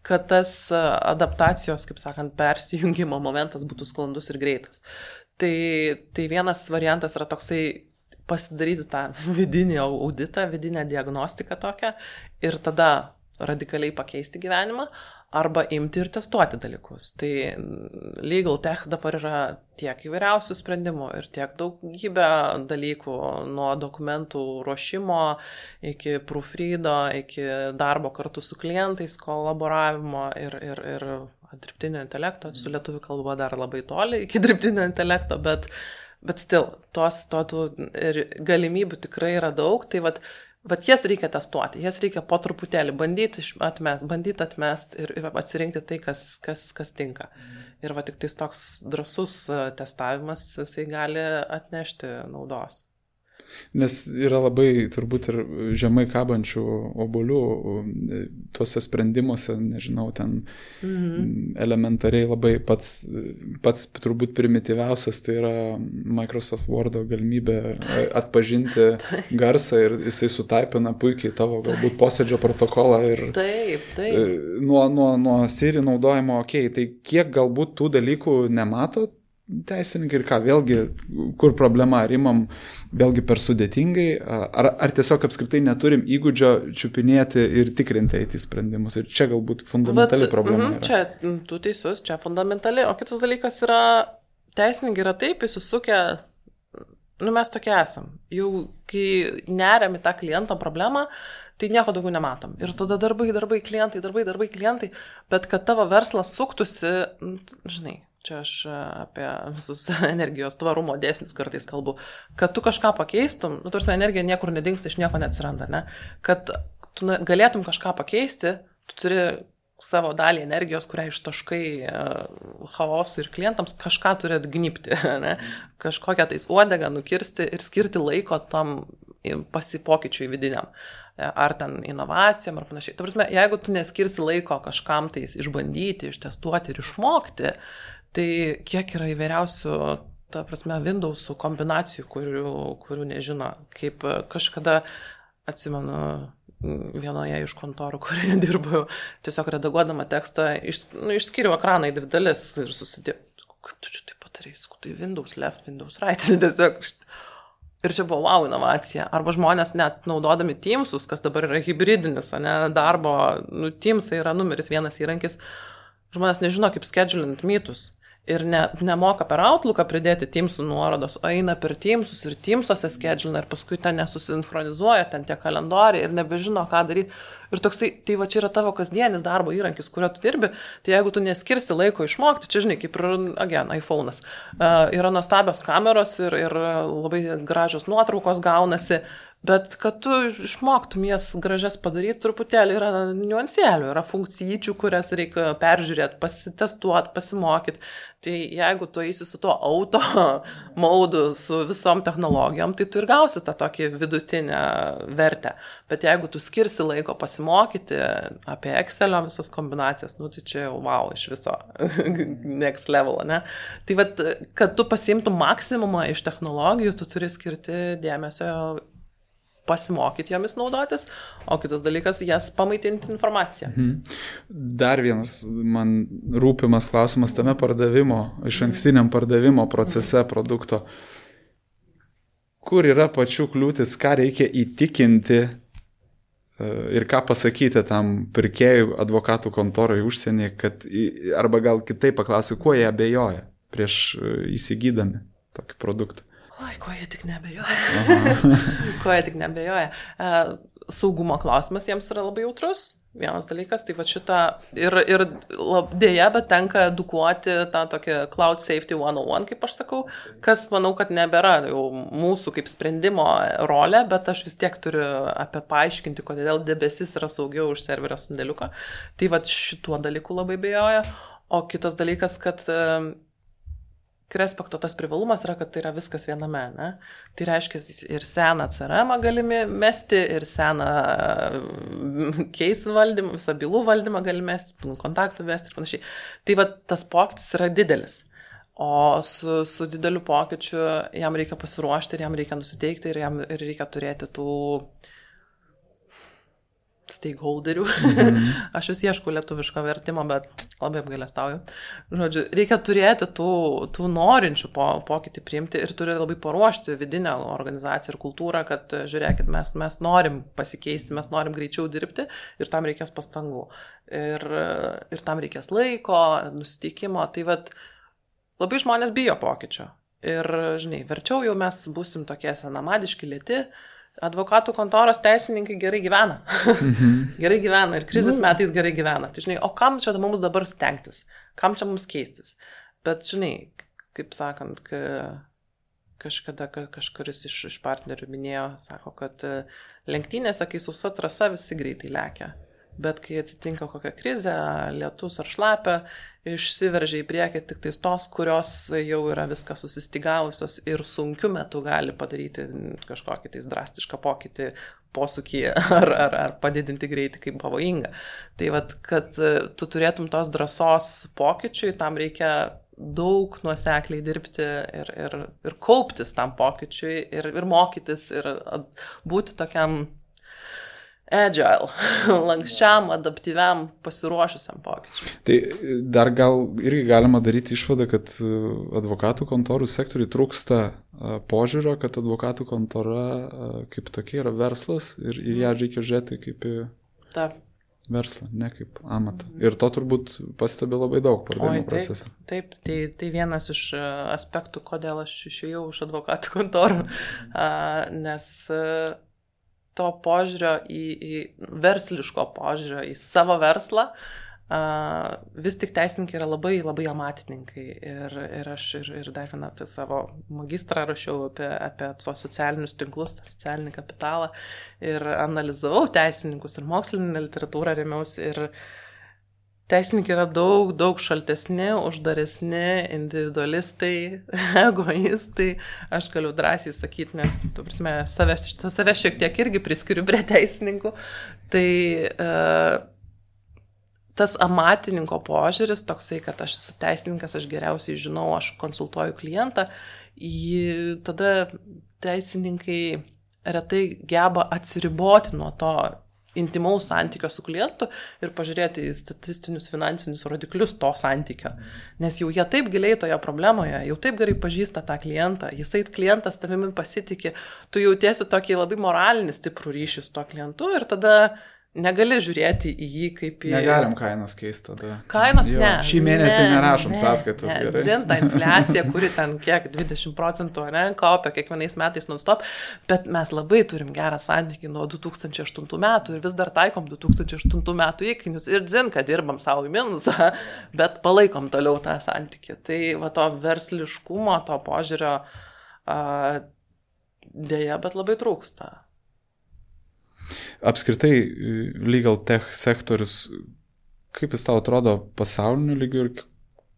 kad tas adaptacijos, kaip sakant, persijungimo momentas būtų sklandus ir greitas. Tai vienas variantas yra toksai pasidaryti tą vidinį auditą, vidinę diagnostiką tokią ir tada radikaliai pakeisti gyvenimą arba imti ir testuoti dalykus. Tai Legal Tech dabar yra tiek įvairiausių sprendimų ir tiek daugybė dalykų nuo dokumentų ruošimo iki proofreado, iki darbo kartu su klientais, kolaboravimo ir dirbtinio intelekto. Su lietuvių kalba dar labai toli iki dirbtinio intelekto, bet still, tų galimybių tikrai yra daug, tai vat jas reikia testuoti, jas reikia po truputėlį bandyti atmest ir atsirinkti tai, kas tinka. Ir va tik tais toks drąsus testavimas, jisai gali atnešti naudos. Nes yra labai turbūt ir žemai kabančių obuolių tuose sprendimuose, nežinau, ten elementariai labai pats turbūt primityviausias, tai yra Microsoft Word'o galimybė atpažinti garsą ir jisai sutaipina puikiai tavo galbūt posėdžio protokolą ir taip. Nuo Siri naudojimo, tai kiek galbūt tų dalykų nematot teisininkai ir ką, vėlgi, kur problema, ar imam vėlgi per sudėtingai, ar tiesiog apskritai neturim įgūdžio čiupinėti ir tikrinti IT sprendimus. Ir čia galbūt fundamentali problema yra. Čia tu teisus, čia fundamentali, o kitas dalykas yra, teisininkai yra taip įsisukę, mes tokie esam. Jau kai neriam į tą kliento problemą, tai nieko daugiau nematom. Ir tada darbai, klientai, bet kad tavo verslas suktųsi, žinai, čia aš apie visus energijos tvarumo dėsnius kartais kalbu, kad tu kažką pakeistum, nu, tarsi energija niekur nedingsta, iš nieko neatsiranda, ne? Kad tu galėtum kažką pakeisti, tu turi savo dalį energijos, kurią ištaškai chaosui ir klientams, kažką turi atgnybti, ne? Kažkokią tais uodegą nukirsti ir skirti laiko tam pasipokyčiui vidiniam. Ar ten inovacijom, ar panašiai. Ta prasme, jeigu tu neskirsi laiko kažkam tais išbandyti, ištestuoti ir išmokti, tai kiek yra įvairiausių, ta prasme, Windowsų kombinacijų, kurių nežino. Kaip kažkada, atsimenu, vienoje iš kontorų, kurioje dirbau, tiesiog redaguodama tekstą, išskyriau ekraną į dvi dalis ir susidėjau. Kaip tu čia taip patarei? Tai Windows left, Windows right. Tiesiog. Ir čia buvo wow inovacija. Arba žmonės net naudodami Teamsus, kas dabar yra hybridinis, ne, darbo, Teamsai yra numeris vienas įrankis, žmonės nežino, kaip schedulint meetus. Ir nemoka per Outlooką pridėti Teamsų nuorodos, o eina per Teamsus ir Teamsuose schedulina ir paskui ten nesusinchronizuoja, ten tie kalendoriai ir nebežino, ką daryti. Ir toksai, tai va čia yra tavo kasdienis darbo įrankis, kurio tu dirbi, tai jeigu tu neskirsi laiko išmokti, čia žinai, kaip ir, iPhone'as, yra nuostabios kameros ir labai gražios nuotraukos gaunasi, bet kad tu išmoktum jas gražias padaryti, truputėlį yra niuansėlių, yra funkcijyčių, kurias reikia peržiūrėti, pasitestuoti, pasimokyti. Tai jeigu tu eisi su tuo auto maudu, su visom technologijom, tai tu ir gausi tą tokį vidutinę vertę. Bet jeigu tu skirsi laiko pasimokyti apie Excelio visas kombinacijas, tai čia jau wow, iš viso next level, ne? Tai vat, kad tu pasiimtum maksimumą iš technologijų, tu turi skirti dėmesio pasimokyti jomis naudotis, o kitas dalykas, jas pamaitinti informaciją. Dar vienas man rūpimas klausimas tame iš ankstiniam pardavimo procese produkto. Kur yra pačių kliūtis, ką reikia įtikinti ir ką pasakyti tam pirkėjui, advokatų kontorui užsienį, arba gal kitaip paklausiu, kuo jie abejoja prieš įsigydami tokį produktą? Oi, ko jie tik nebejoja. Ko jie tik nebejoja. Saugumo klausimas jiems yra labai jautrus. Vienas dalykas, tai va šitą ir dėja, bet tenka edukuoti tą tokią Cloud Safety 101, kaip aš sakau, kas manau, kad nebėra jau mūsų kaip sprendimo rolė, bet aš vis tiek turiu apie paaiškinti, kodėl debesis yra saugiau už serverio sandėliuką. Tai va šituo dalyku labai bejoja. O kitas dalykas, kad Krespekto tas privalumas yra, kad tai yra viskas viename, ne? Tai reiškia ir seną CRM galime mesti, ir seną case valdymą, visą bylų valdymą galime mesti, kontaktų vesti ir panašiai. Tai va tas pokytis yra didelis. O su dideliu pokyčiu jam reikia pasiruošti ir jam reikia nusiteikti ir jam reikia turėti tų stakeholderių. Aš vis ieškau lietuviško vertimo, bet labai apgailestauju. Žodžiu, reikia turėti tų norinčių pokytį priimti ir turi labai paruošti vidinę organizaciją ir kultūrą, kad žiūrėkit, mes norim pasikeisti, mes norim greičiau dirbti ir tam reikės pastangų. Ir tam reikės laiko, nusiteikimo. Tai vat, labai žmonės bijo pokyčio. Ir, žinai, verčiau jau mes būsim tokie senamadiški, lėti. Advokatų kontoros teisininkai gerai gyvena. Gerai gyvena ir krizės metais gerai gyvena. Tai žinai, o kam čia mums dabar stengtis? Kam čia mums keistis? Bet žinai, kaip sakant, kažkada kažkuris iš partnerių minėjo, sako, kad lenktynėse, kai sausa trasa, visi greitai lekia. Bet kai atsitinka kokia krizė, lietus ar šlapia, išsiveržia į priekį tik tais tos, kurios jau yra viską susistygavusios ir sunkiu metu gali padaryti kažkokį tais drastišką pokytį, posūkį ar padidinti greitį kaip pavojinga. Tai vat, kad tu turėtum tos drąsos pokyčiui, tam reikia daug nuosekliai dirbti ir kauptis tam pokyčiui ir mokytis ir būti tokiam agile, lankščiam, adaptyviam, pasiruošusiam pokyčiui. Tai dar gal irgi galima daryti išvadą, kad advokatų kontorų sektoriui trūksta požiūrio, kad advokatų kontora kaip tokia yra verslas ir ją reikia žiūrėti kaip į verslą, ne kaip amatą. Ir to turbūt pastebi labai daug pardavimo procese. Taip, tai vienas iš aspektų, kodėl aš išėjau iš advokatų kontorų, nes to požiūrio į versliško požiūrio į savo verslą vis tik teisininkai yra labai, labai amatininkai ir aš dar vieną tai savo magistrą rašiau apie socialinius tinklus, tą socialinį kapitalą ir analizavau teisininkus ir mokslinę literatūrą remiausi ir teisininkai yra daug, daug šaltesni, uždaresni, individualistai, egoistai, aš galiu drąsiai sakyti, nes, tu prasme, save šiek tiek irgi priskiriu prie teisininkų, tai tas amatininko požiūris toksai, kad aš esu teisininkas, aš geriausiai žinau, aš konsultuoju klientą, tada teisininkai retai geba atsiriboti nuo to intimaus santykio su klientu ir pažiūrėti į statistinius finansinius rodiklius to santykio. Nes jau jie taip giliai toje problemoje, jau taip gerai pažįsta tą klientą, jisai klientas tavimi pasitikė, tu jautiesi tokį labai moralinį stiprų ryšį su to klientu ir tada negali žiūrėti į jį kaip į... Negalim kainos keisti tada. Kainos jo, ne. Šį mėnesį nerašom sąskaitos gerai. Dzinta infliacija, kuri ten kiek 20% kaupia kiekvienais metais non-stop, bet mes labai turim gerą santykį nuo 2008 metų ir vis dar taikom 2008 metų įkainius ir dzinka dirbam savo į minusą, bet palaikom toliau tą santykį. Tai va to versliškumo, to požiūrio dėja, bet labai trūksta. Apskritai, legal tech sektorius, kaip jis tau atrodo pasauliniu lygiu ir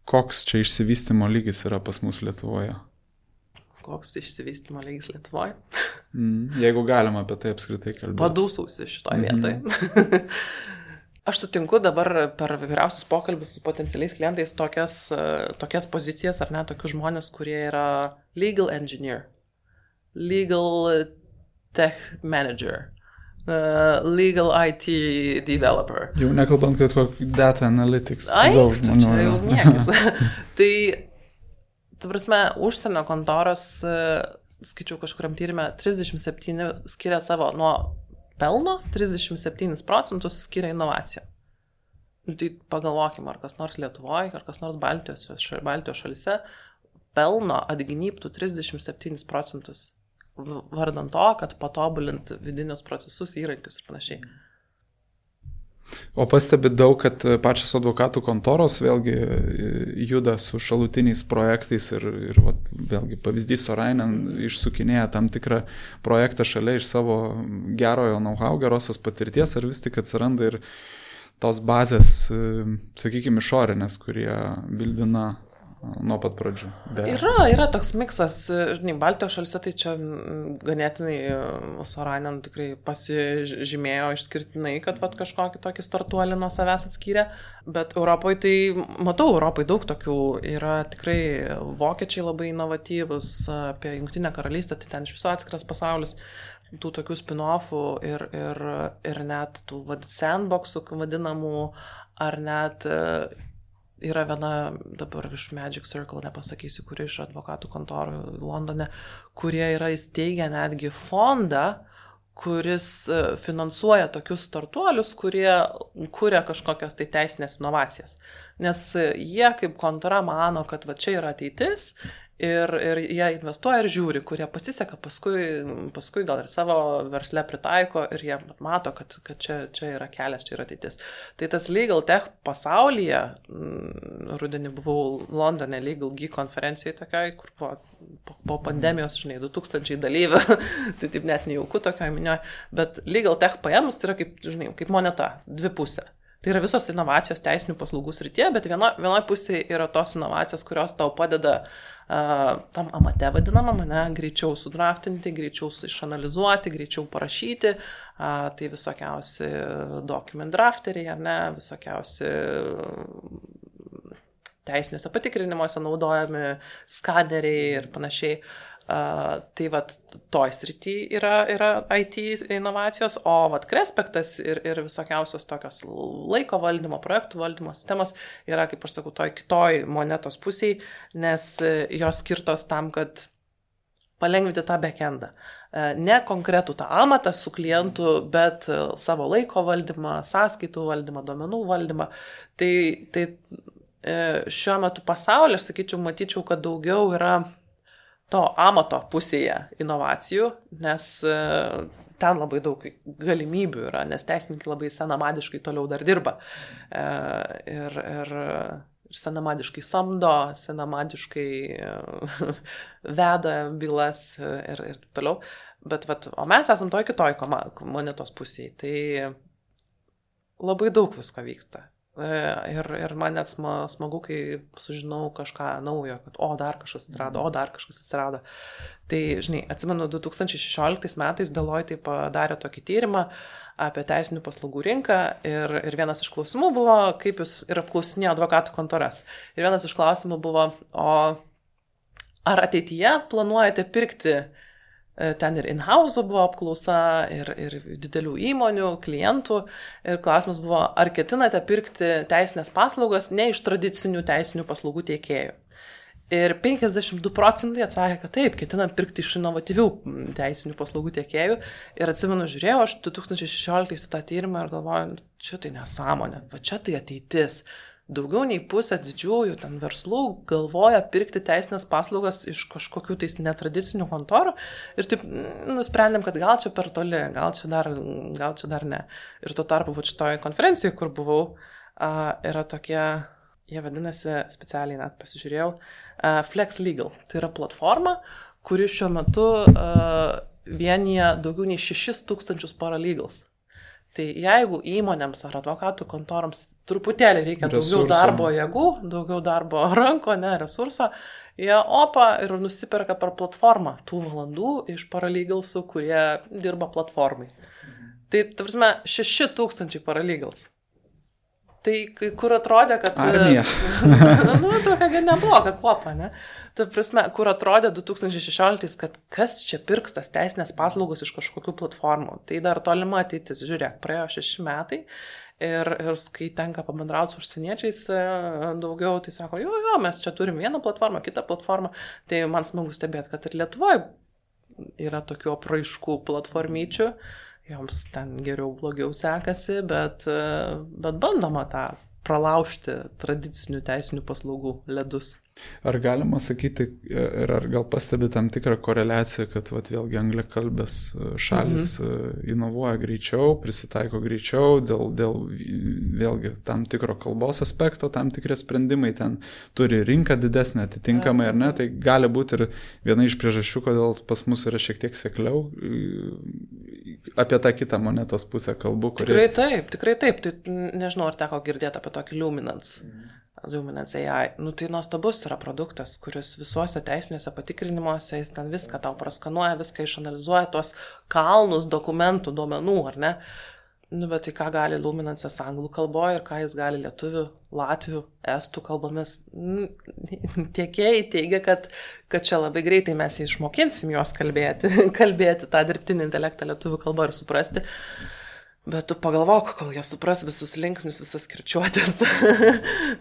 koks čia išsivystymo lygis yra pas mus Lietuvoje? Koks išsivystymo lygis Lietuvoje? Jeigu galima apie tai apskritai kalbėti. Padūsausi šitoje vietoje. Aš sutinku dabar per vyriausius pokalbius su potencialiais klientais tokias pozicijas, ar ne, tokius žmonės, kurie yra legal engineer, legal tech manager, legal IT developer. Jau nekalbant, kad kokį data analytics. Čia jau niekas. Tai, ta prasme, užsienio kontoros, skaičiau kažkuriam tyrime, 37 skiria savo nuo pelno, 37% skiria inovaciją. Tai pagalvokime, ar kas nors Lietuvoje, ar kas nors Baltijos šalyse pelno atgynyptų 37%. Vardant to, kad patobulint vidinius procesus, įrankius ir panašiai. O pastebi daug, kad pačios advokatų kontoros vėlgi juda su šalutiniais projektais ir vėlgi pavyzdys Sorainen išsukinėja tam tikrą projektą šalia iš savo gerojo know-how, gerosios patirties, ar vis tik atsiranda ir tos bazės, sakykime, išorinės, kurie bildina nuo pat pradžių. Yra toks miksas, žinai, Baltijos šalyse tai čia ganėtinai Sorainen tikrai pasižymėjo išskirtinai, kad kažkokį tokį startuolį nuo savęs atskyrė, bet Europoje tai, matau, Europoje daug tokių yra tikrai vokiečiai labai inovatyvus, apie Jungtinę karalystę, tai ten iš viso atskiras pasaulis, tų tokių spin-offų ir net tų sandboxų vadinamų, ar net yra viena dabar iš Magic Circle, nepasakysiu, kuri iš advokatų kontorų Londone, kurie yra įsteigę netgi fondą, kuris finansuoja tokius startuolius, kurie kuria kažkokias tai teisinės inovacijas. Nes jie kaip kontora mano, kad čia yra ateitis ir jie investuoja ir žiūri, kurie pasiseka, paskui gal ir savo versle pritaiko ir jie mato, kad čia yra kelias, čia yra ateitis. Tai tas legal tech pasaulyje, rudenį buvau Londone Legal Geek konferencijoje tokiai, kur po pandemijos, žinai, 2000 dalyvių, tai taip net nejauku tokioje minioje, bet legal tech paėmus tai yra kaip, žinai, kaip moneta, dvipusė. Tai yra visos inovacijos teisinių paslaugų srityje, bet vienoje pusėje yra tos inovacijos, kurios tau padeda tam amate vadinamam, greičiau sudraftinti, greičiau išanalizuoti, greičiau parašyti, tai visokiausi document drafteriai, visokiausi teisiniuose patikrinimuose naudojami skaneriai ir panašiai. Tai toj srity yra IT inovacijos, o Krespektas ir visokiausios tokios laiko valdymo, projektų valdymo sistemos yra, kaip aš sakau, toj kitoj monetos pusėj, nes jos skirtos tam, kad palengvinti tą backendą. Ne konkretų tą amatą su klientu, bet savo laiko valdymą, sąskaitų valdymą, duomenų valdymą. Tai šiuo metu pasaulyje, aš sakyčiau, matyčiau, kad daugiau yra to amato pusėje inovacijų, nes ten labai daug galimybių yra, nes teisininkai labai senamadiškai toliau dar dirba. Ir senamadiškai samdo, senamadiškai veda bylas ir toliau. Bet, o mes esam toj kitoj monetos pusėje, tai labai daug visko vyksta. Ir man net smagu, kai sužinau kažką naujo, kad dar kažkas atsirado. Tai, žinai, atsimenu, 2016 metais Deloitte padarė tokį tyrimą apie teisinių paslaugų rinką ir vienas iš klausimų buvo, kaip jūs ir apklausinėjo advokatų kontoras. Ir vienas iš klausimų buvo, ar ateityje planuojate pirkti, ten ir in-house buvo apklausa, ir didelių įmonių, klientų. Ir klausimas buvo, ar ketinate pirkti teisinės paslaugas ne iš tradicinių teisinių paslaugų teikėjų. Ir 52% atsakė, kad taip, ketinam pirkti iš inovatyvių teisinių paslaugų tiekėjų. Ir atsimenu, žiūrėjau aš 2016 tą tyrimą ir galvoju, čia tai nesąmonė, va čia tai ateitis. Daugiau nei pusė didžiųjų ten verslų galvoja pirkti teisinės paslaugas iš kažkokių tais netradicinių kontorų ir taip nusprendėm, kad gal čia per toli, gal čia dar ne. Ir tuo tarpu šitoje konferencijoje, kur buvau, yra tokie, jie vadinasi, specialiai net pasižiūrėjau, Flex Legal. Tai yra platforma, kuri šiuo metu vienyje daugiau nei 6,000 paralegals. Tai jeigu įmonėms ar advokatų kontoroms truputėlį reikia daugiau darbo jėgų, daugiau darbo ranko, resurso, jie ir nusiperka per platformą tų valandų iš paralegalsų, kurie dirba platformai. Tai, ta prasme, 6,000 paralegals. Tai kur atrodė, kad... Armija. Tokia nebloga kuopa, ne? Ta prasme, kur atrodė 2016, kad kas čia pirks tas teisinės paslaugos iš kažkokių platformų. Tai dar tolima ateitis. Žiūrėk, praėjo 6 metai ir kai tenka pabendrauti su užsieniečiais daugiau, tai sako, jo, mes čia turim vieną platformą, kitą platformą. Tai man smagu stebėti, kad ir Lietuvoje yra tokių apraiškų platformyčių. Joms ten geriau, blogiau sekasi, bet bandoma tą pralaužti tradicinių teisinių paslaugų ledus. Ar galima sakyti, ir ar gal pastebi tam tikrą koreliaciją, kad vėlgi angliakalbės šalis inovuoja greičiau, prisitaiko greičiau, dėl vėlgi tam tikro kalbos aspekto, tam tikri sprendimai ten turi rinką didesnę atitinkamai, ar ne, tai gali būti ir viena iš priežasčių, kodėl pas mus yra šiek tiek sekliau. Apie tą kitą monetos pusę kalbu. Tikrai taip. Tai nežinau, ar teko girdėti apie tokį Luminance AI. Tai nuostabus yra produktas, kuris visuose teisiniuose patikrinimuose, jis ten viską tau praskanuoja, viską išanalizuoja, tos kalnus dokumentų, duomenų, ar ne? Bet tai ką gali Luminance'as anglų kalboje ir ką jis gali lietuvių, latvių, estų kalbomis. Tiekėjai teigia, kad čia labai greitai mes išmokinsim juos kalbėti tą dirbtinį intelektą lietuvių kalbą ir suprasti. Bet tu pagalvok, kol jie supras visus linksnius, visas kirčiuotės,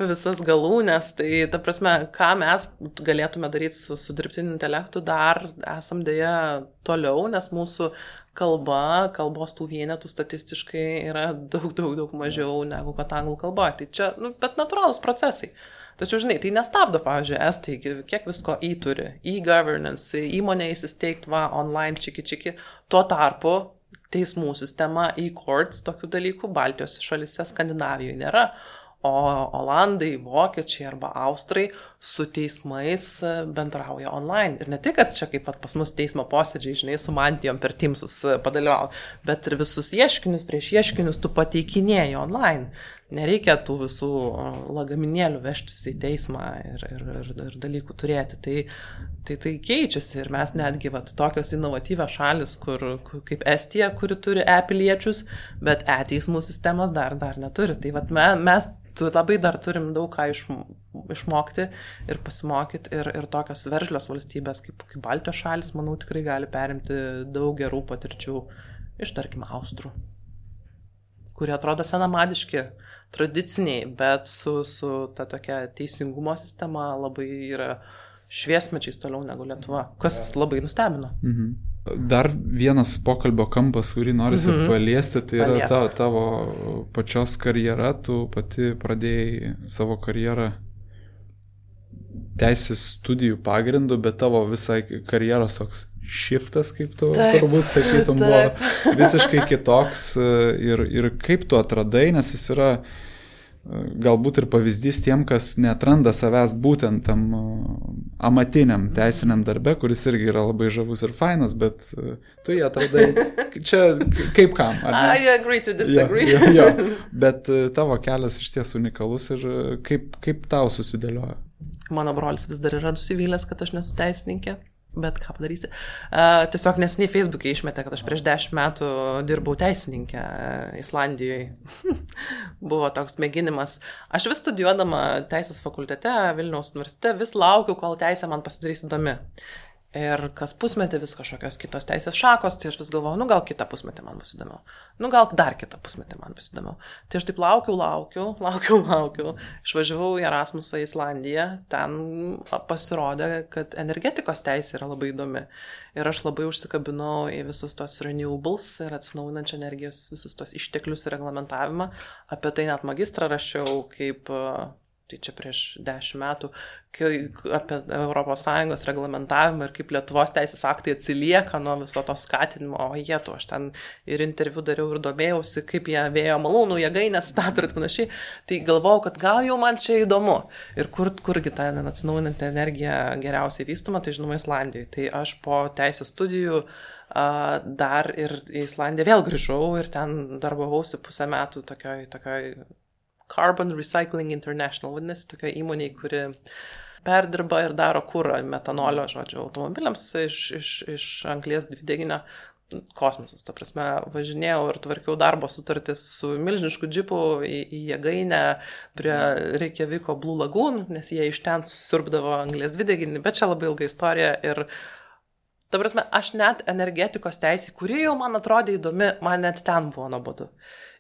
visas galūnės, tai ta prasme, ką mes galėtume daryti su dirbtiniu intelektu, dar esam dėja toliau, nes mūsų kalbos tų vienetų statistiškai yra daug mažiau negu kad anglų kalboje. Tai čia, bet natūralūs procesai. Tačiau, žinai, tai nestabdo, pavyzdžiui, estai, kiek visko turi, e-governance, įmonė įsisteigt, online, čiki, tuo tarpu teismų sistema, e-courts, tokių dalykų Baltijos šalyse, Skandinavijoje nėra, o Olandai, Vokiečiai arba Austrai su teismais bendrauja online. Ir ne tik, kad čia kaip pas mus teismo posėdžiai, žinai, su mantijom per Teamsus padalyvauja, bet ir visus ieškinius prieš ieškinius tu pateikinėji online. Nereikia tų visų lagaminėlių vežtis į teismą ir dalykų turėti. Tai keičiasi ir mes netgi tokios inovatyvios šalis, kaip Estija, kuri turi e-piliečius, bet e-teismų sistemos dar neturi. Tai mes labai dar turim daug ką išmokti ir pasimokyti ir tokios veržlios valstybės kaip Baltijos šalis, manau, tikrai gali perimti daug gerų patirčių iš, tarkim, Austrų, kurie atrodo senamadiški, tradiciniai, bet su ta tokia teisingumo sistema labai yra šviesmečiais toliau negu Lietuva, kas labai nustebino. Dar vienas pokalbio kampas, kurį norisi paliesti, tai yra tavo pačios karjera. Tu pati pradėjai savo karjerą teisės studijų pagrindu, bet tavo visai karjeros toks shiftas, kaip tu turbūt sakytum, buvo visiškai kitoks ir kaip tu atradai, nes jis yra galbūt ir pavyzdys tiem, kas neatranda savęs būtent tam amatiniam teisiniam darbe, kuris irgi yra labai žavus ir fainas, bet tu jį atradai čia kaip kam. I agree to disagree. Jo. Bet tavo kelias iš ties unikalus ir kaip tau susidėliojo? Mano brolis vis dar yra nusivylęs, kad aš nesu teisininkė. Bet ką padarysi? Tiesiog nesiniai Facebook'e išmetė, kad aš prieš 10 metų dirbau teisininkę Islandijoje. Buvo toks mėginimas. Aš vis studijuodama teisės fakultete Vilniaus universitete vis laukiu, kol teisė man pasidarys įdomi. Ir kas pusmetį vis kažkokios kitos teisės šakos, tai aš vis galvoju, gal kitą pusmetį man bus įdomiau. Gal dar kitą pusmetį man bus įdomiau. Tai aš taip laukiu. Išvažiavau į Erasmusą į Islandiją, ten pasirodė, kad energetikos teisė yra labai įdomi. Ir aš labai užsikabinau į visus tos renewables ir atsinaujinančią energijos, visus tos išteklius ir reglamentavimą. Apie tai net magistrą rašiau kaip... Tai čia prieš 10 metų, apie ES reglamentavimą ir kaip Lietuvos teisės aktai atsilieka nuo viso to skatinimo. Aš ten ir interviu dariau ir domėjausi, kaip jie vėjo malūnų jėgainės stato ir panašiai. Tai galvojau, kad gal jau man čia įdomu. Ir kurgi ta atsinaujinanti energija geriausiai vystoma, tai žinoma Islandijoje. Tai aš po teisės studijų dar ir į Islandiją vėl grįžau ir ten darbavausi pusę metų tokioj Carbon Recycling International, vadinasi, tokia įmonė, kuri perdirba ir daro kurą metanolio, automobiliams iš anglies dvideginio. Kosmosas, ta prasme, važinėjau ir tvarkiau darbo sutartis su milžinišku džipu į jėgainę prie Reykjaviko Blue Lagoon, nes jie iš ten susiurbdavo anglies dvideginį, bet čia labai ilga istorija ir ta prasme, aš net energetikos teisė, kuri jau man atrodė įdomi, man net ten buvo nuobodu.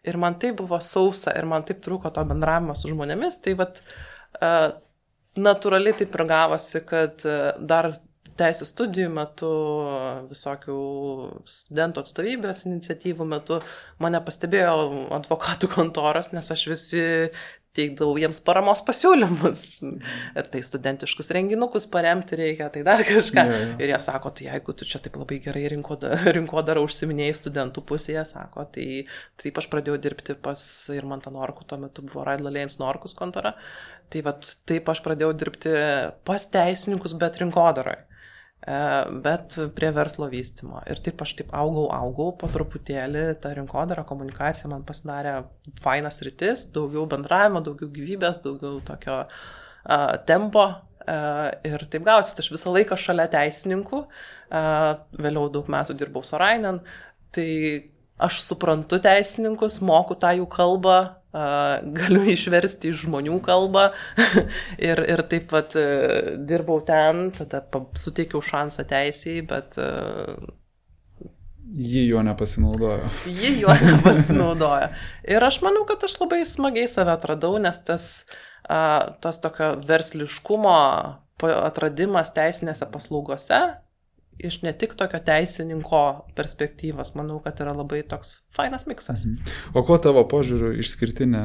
Ir man tai buvo sausa ir man taip trūko to bendravimo su žmonėmis, tai natūraliai taip ir gavosi, kad dar teisės studijų metu, visokių studentų atstovybės iniciatyvų metu mane pastebėjo advokatų kontoros, nes aš visi teikdavau jiems paramos pasiūlymus. Tai studentiškus renginukus paremti reikia, tai dar kažką. Ir jie sako, tai jeigu tu čia taip labai gerai rinkodarą užsiminėjai studentų pusėje, sako, tai taip aš pradėjau dirbti pas Irmantą Norkų, tuo metu buvo Raidla Lėjens Norkus kontora. Tai taip aš pradėjau dirbti pas teisininkus, bet rinkodaroje. Bet prie verslo vystymo. Ir taip aš augau, po truputėlį ta rinkodara, komunikacija man pasidarė fainas rytis, daugiau bendravimo, daugiau gyvybės, daugiau tokio tempo. Ir taip gausi, aš visą laiką šalia teisininkų, vėliau daug metų dirbau Sorainen, tai aš suprantu teisininkus, moku tą jų kalbą, galiu išversti iš žmonių kalbą ir taip pat dirbau ten, tada suteikiau šansą teisėjai, bet... Ji juo nepasinaudojo. Ir aš manau, kad aš labai smagiai save atradau, nes tas tokio versliškumo atradimas teisinėse paslaugose, iš ne tik tokio teisininko perspektyvos, manau, kad yra labai toks fainas miksas. O kuo tavo požiūriu išskirtinė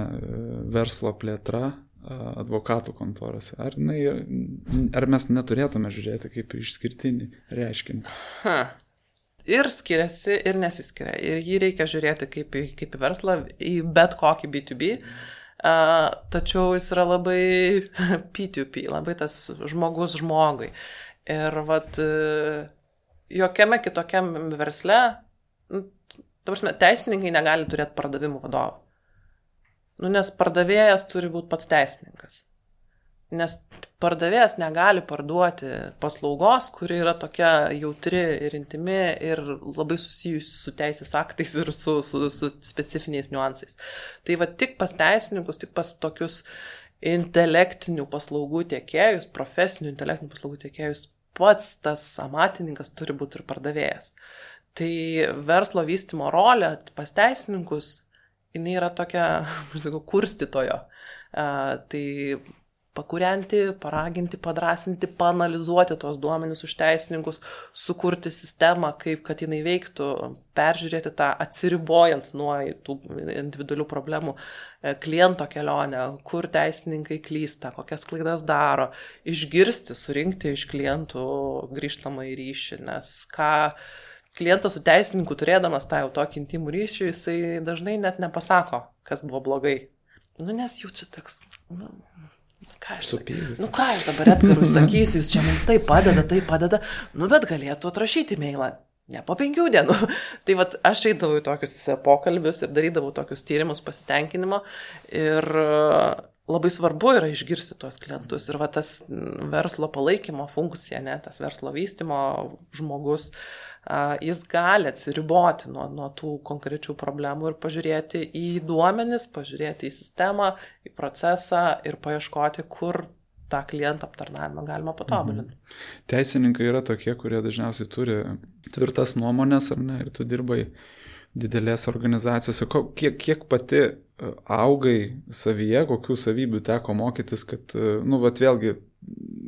verslo plėtra advokatų kontorose? Ar mes neturėtume žiūrėti kaip išskirtinį reiškinį? Ir skiriasi, ir nesiskiria. Ir jį reikia žiūrėti kaip į verslą, į bet kokį B2B. Tačiau jis yra labai P2P, labai tas žmogus žmogui. Ir jokiame kitokiam versle, teisininkai negali turėti pardavimų vadovų. Nes pardavėjas turi būti pats teisininkas. Nes pardavėjas negali parduoti paslaugos, kuri yra tokia jautri ir intimi ir labai susijusi su teisės aktais ir su specifiniais niuansais. Tai tik pas teisininkus, tik pas tokius intelektinių paslaugų tiekėjus, profesinių intelektinių paslaugų tiekėjus, pats tas amatininkas turi būti ir pardavėjas. Tai verslo vystymo rolė pas teisininkus, jinai yra tokia, kurstytojo. Tai pakurianti, paraginti, padrasinti, paanalizuoti tos duomenis už teisininkus, sukurti sistemą, kaip kad jinai veiktų, peržiūrėti tą atsiribojant nuo tų individualių problemų kliento kelionę, kur teisininkai klysta, kokias klaidas daro, išgirsti, surinkti iš klientų grįžtamą į ryšį, nes ką klientas su teisininku turėdamas tą jau tokį intimų ryšį, jisai dažnai net nepasako, kas buvo blogai. Nes jau čia toks, ką aš dabar Edgarui sakysiu, jūs čia mums tai padeda, bet galėtų atrašyti mailą, ne po 5 dienų. Tai vat aš eidavau į tokius pokalbius ir darydavau tokius tyrimus pasitenkinimo ir labai svarbu yra išgirsti tuos klientus ir va tas verslo palaikymo funkcija, tas verslo vystymo žmogus, jis gali atsiriboti nuo tų konkrečių problemų ir pažiūrėti į duomenis, pažiūrėti į sistemą, į procesą ir paieškoti, kur tą klientą aptarnavimą galima patobulinti. Teisininkai yra tokie, kurie dažniausiai turi tvirtas nuomonės, ar ne, ir tu dirbai didelės organizacijose. Kiek pati augai savyje, kokių savybių teko mokytis, kad, vėlgi,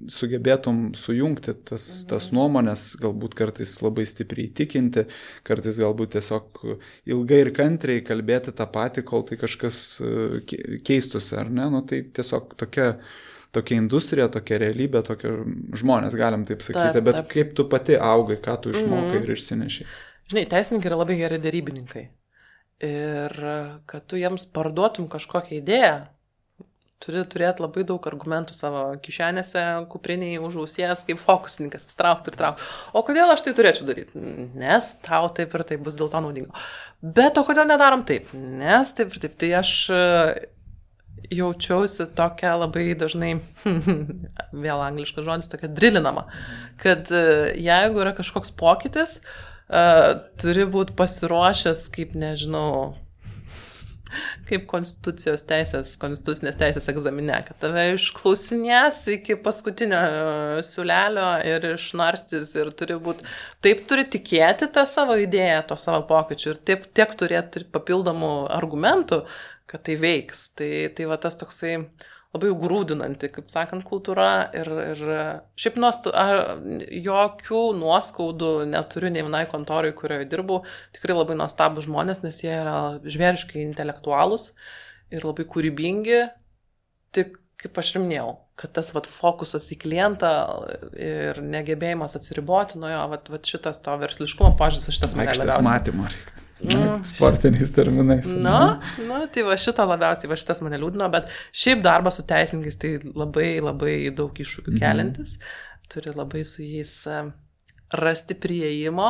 sugebėtum sujungti tas nuomonės, galbūt kartais labai stipriai įtikinti, kartais galbūt tiesiog ilgai ir kantriai kalbėti tą patį, kol tai kažkas keistusi, ar ne? Tai tiesiog tokia industrija, tokia realybė, tokie žmonės, galim taip sakyti, bet kaip tu pati augai, ką tu išmokai ir išsinešiai? Žinai, teisininkai yra labai geri derybininkai. Ir kad tu jiems parduotum kažkokią idėją, turi turėti labai daug argumentų savo kišenėse, kupriniai, už ausies, kaip fokusininkas, vis traukti. O kodėl aš tai turėčiau daryti? Nes tau taip ir taip bus dėl to naudingo. Bet o kodėl nedarom taip? Nes taip ir taip. Tai aš jaučiausi tokia labai dažnai, vėl angliškas žodis, tokia drilinama, kad jeigu yra kažkoks pokytis, turi būti pasiruošęs, kaip nežinau, kaip konstitucinės teisės egzamine, kad tave išklausinės iki paskutinio siūlelio ir išnarstys ir taip turi tikėti tą savo idėją, to savo pokyčių ir tiek turėti papildomų argumentų, kad tai veiks. Tai va tas toksai labai grūdinanti, kaip sakant, kultūra ir šiaip jokių nuoskaudų neturiu nei vienai kontorai, kurioje dirbau, tikrai labai nuostabūs žmonės, nes jie yra žvėriškai intelektualūs ir labai kūrybingi, tik kaip aš ir minėjau, kad tas fokusas į klientą ir negebėjimas atsiriboti nuo jo, šitas to versliškumo požiūris, šitas mane labiausiai. Aikštės matymo reiktų. Sportiniais terminais. Tai šito labiausiai, šitas mane liūdino, bet šiaip darbas su teisininkais tai labai, labai daug iššūkių keliantis. Turi labai su jais rasti prieimo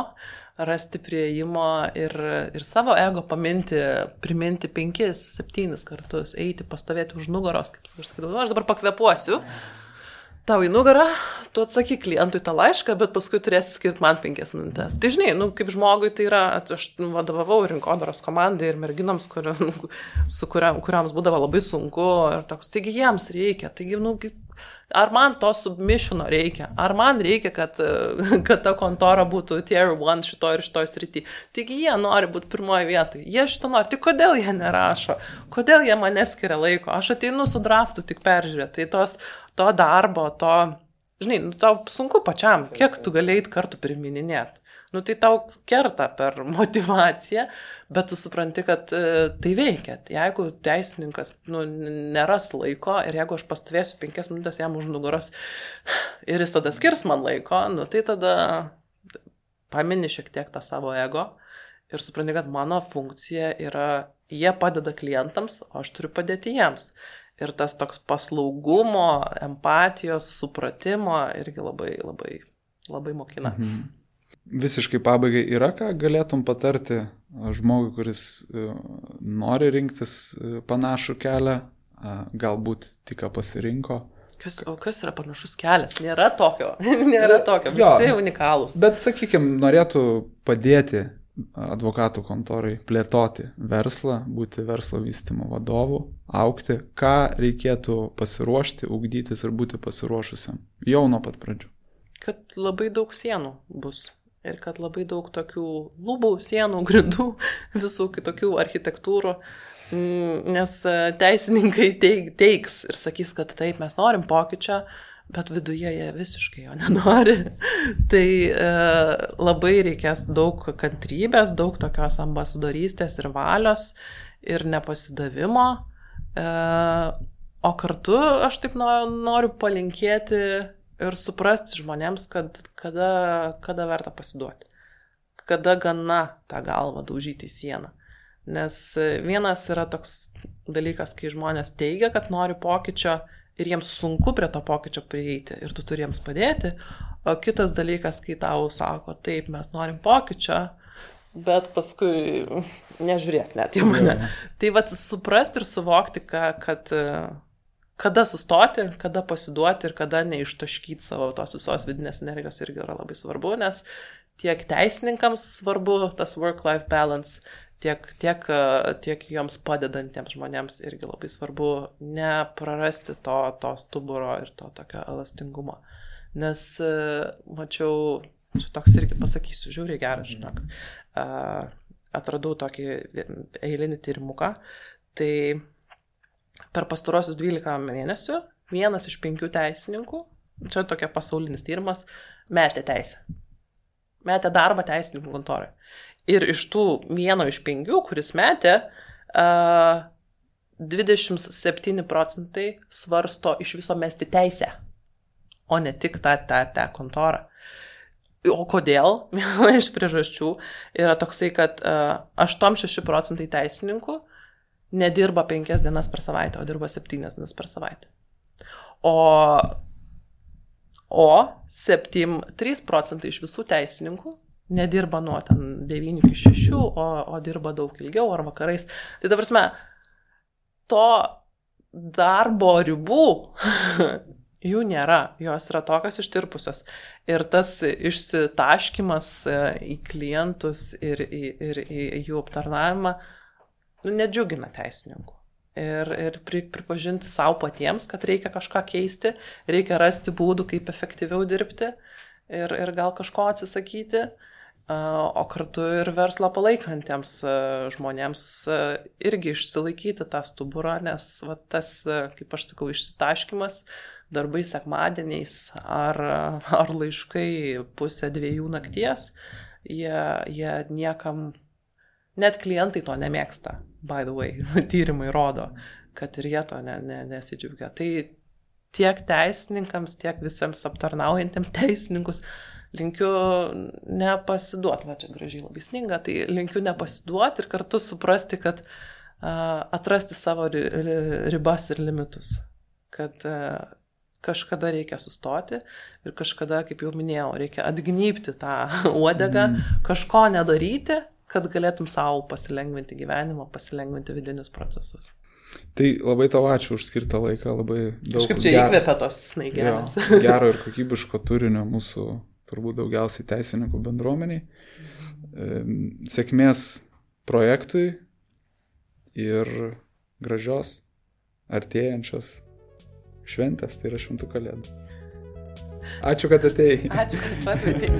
ir savo ego priminti 5-7 kartus, eiti, pastovėti už nugaros, kaip aš sakydavau, aš dabar pakvepuosiu tau į nugarą, tu atsakyk klientui tą laišką, bet paskui turėsi skirti man 5 minutės. Tai žinai, kaip žmogui tai yra, aš vadovavau rinkodaros komandai ir merginoms, kuriams būdavo labai sunku ir toks, taigi jiems reikia, ar man to submissiono reikia, ar man reikia, kad ta kontora būtų tier 1 šitoj srity. Taigi jie nori būti pirmoje vietoje, jie šito nori, tai kodėl jie nerašo, kodėl jie man neskiria laiko, aš ateinu su draftu tik peržiūrėti, tai to darbo, žinai, tau sunku pačiam, kiek tu galėjai kartu primininėti. Tai tau kerta per motivaciją, bet tu supranti, kad tai veikia. Jeigu teisininkas neras laiko ir jeigu aš pastovėsiu 5 minutės jam už nugaros ir jis tada skirs man laiko, tai tada pamini šiek tiek tą savo ego ir supranti, kad mano funkcija yra, jie padeda klientams, o aš turiu padėti jiems. Ir tas toks paslaugumo, empatijos, supratimo irgi labai, labai, labai mokina. Visiškai pabaigai yra, ką galėtum patarti žmogui, kuris nori rinktis panašų kelią, galbūt tik pasirinko? Kas yra panašus kelias? Nėra tokio, visi unikalūs. Bet, sakykime, norėtų padėti advokatų kontorai plėtoti verslą, būti verslo vystymo vadovu, augti, ką reikėtų pasiruošti, ugdytis ir būti pasiruošusiam jau nuo pat pradžių? Kad labai daug sienų bus ir kad labai daug tokių lubų, sienų, grindų, visų kitokių architektūrų, Nes teisininkai teiks ir sakys, kad taip, mes norim pokyčio, bet viduje jie visiškai jo nenori. Tai labai reikės daug kantrybės, daug tokios ambasadorystės ir valios ir nepasidavimo. O kartu aš taip noriu palinkėti ir suprasti žmonėms, kad kada verta pasiduoti. Kada gana tą galvą daužyti į sieną. Nes vienas yra toks dalykas, kai žmonės teigia, kad nori pokyčio ir jiems sunku prie to pokyčio prieiti ir tu turi jiems padėti. O kitas dalykas, kai tau sako, taip, mes norim pokyčio, bet paskui nežiūrėk net į mane. Tai vat suprasti ir suvokti, kad kada sustoti, kada pasiduoti ir kada neištaškyti savo tos visos vidinės energijos irgi yra labai svarbu, nes tiek teisininkams svarbu tas work-life balance, tiek joms padedantiems žmonėms irgi labai svarbu neprarasti to stuburo ir to tokio elastingumo. Nes mačiau, čia toks irgi pasakysiu, žiūrėjau gerą, žinok, atradau tokį eilinį tyrimuką, tai per pastarosius 12 mėnesių 1 iš 5 teisininkų, čia tokia pasaulinis tyrimas, metė teisę. Metė darbą teisininkų kontorai. Ir iš tų 1 iš 5, kuris metė, 27% svarsto iš viso mesti teisę, o ne tik tą kontorą. O kodėl? Viena iš priežasčių yra toksai, kad 86% teisininkų nedirba 5 dienas per savaitę, o dirba 7 dienas per savaitę. O 3% iš visų teisininkų nedirba nuo 9 iki 6, o dirba daug ilgiau ar vakarais. Tai ta prasme, to darbo ribų jų nėra, jos yra tokios ištirpusios. Ir tas išsitaškymas į klientus ir į jų aptarnavimą nedžiugina teisininkų. Ir pripažinti savo patiems, kad reikia kažką keisti, reikia rasti būdų, kaip efektyviau dirbti ir gal kažko atsisakyti, o kartu ir verslą palaikantiems žmonėms irgi išsilaikyti tą stuburą, nes va, tas, kaip aš sakau, išsitaškymas darbai sekmadieniais ar laiškai 1:30 nakties, jie niekam, net klientai to nemėgsta. By the way, tyrimai rodo, kad ir jie to nesidžiaugia. Tai tiek teisininkams, tiek visiems aptarnaujantiems teisininkus linkiu nepasiduoti, va čia gražiai labai sninga, tai linkiu nepasiduoti ir kartu suprasti, kad atrasti savo ribas ir limitus, kad kažkada reikia sustoti ir kažkada, kaip jau minėjau, reikia atgnypti tą uodegą, kažko nedaryti, kad galėtum savo pasilengvinti gyvenimą, pasilengvinti vidinius procesus. Tai labai tau ačiū už skirtą laiką, labai daug. Kažkaip čia įkvėpia tos snaigelės. Gero ir kokybiško turinio mūsų turbūt daugiausiai teisininkų bendruomeniai. Sėkmės projektui ir gražios artėjančios šventės, tai yra Šventų Kalėdų. Ačiū, kad atėjai. Ačiū, kad pakvietei.